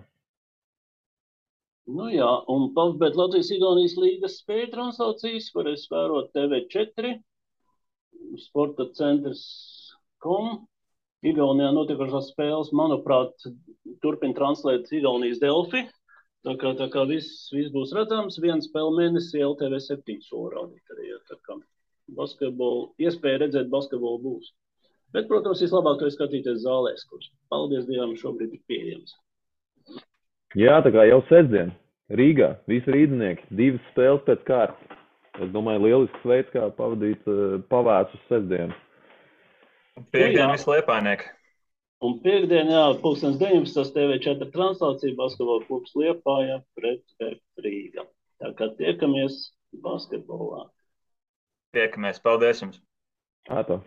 Speaker 2: Nu jā, un Puppet Latvijas-Igaunijas līgas spēļu translācijas varēs vērot TV4, Sporta centrs.com. Igaunijā notikušās spēles, manuprāt, turpina translēt Igaunijas Delfi. Tā kā viss būs redzams, 1 spēle mēnesī LTV 7 soli rādīt arī. Tā kā iespēja redzēt basketbolu būs. Bet, protams, vislabāk to ir skatīties zālēs, kurš, paldies Dievam, šobrīd ir pieejams.
Speaker 3: Jā, tā kā jau sestdien Rīgā, visi rīdzinieki, 2 spēles pēc kārtas. Es domāju, lielisks veids, kā pavadīt pavēsus sestdienu.
Speaker 1: Piektdien visi Liepājnieki.
Speaker 2: Un piektdien, 19. TV4 translācija basketbola klubs Liepāja pret Rīga. Tā kā tiekamies basketbolā.
Speaker 1: Tiekamies, paldies jums!
Speaker 3: Ātā.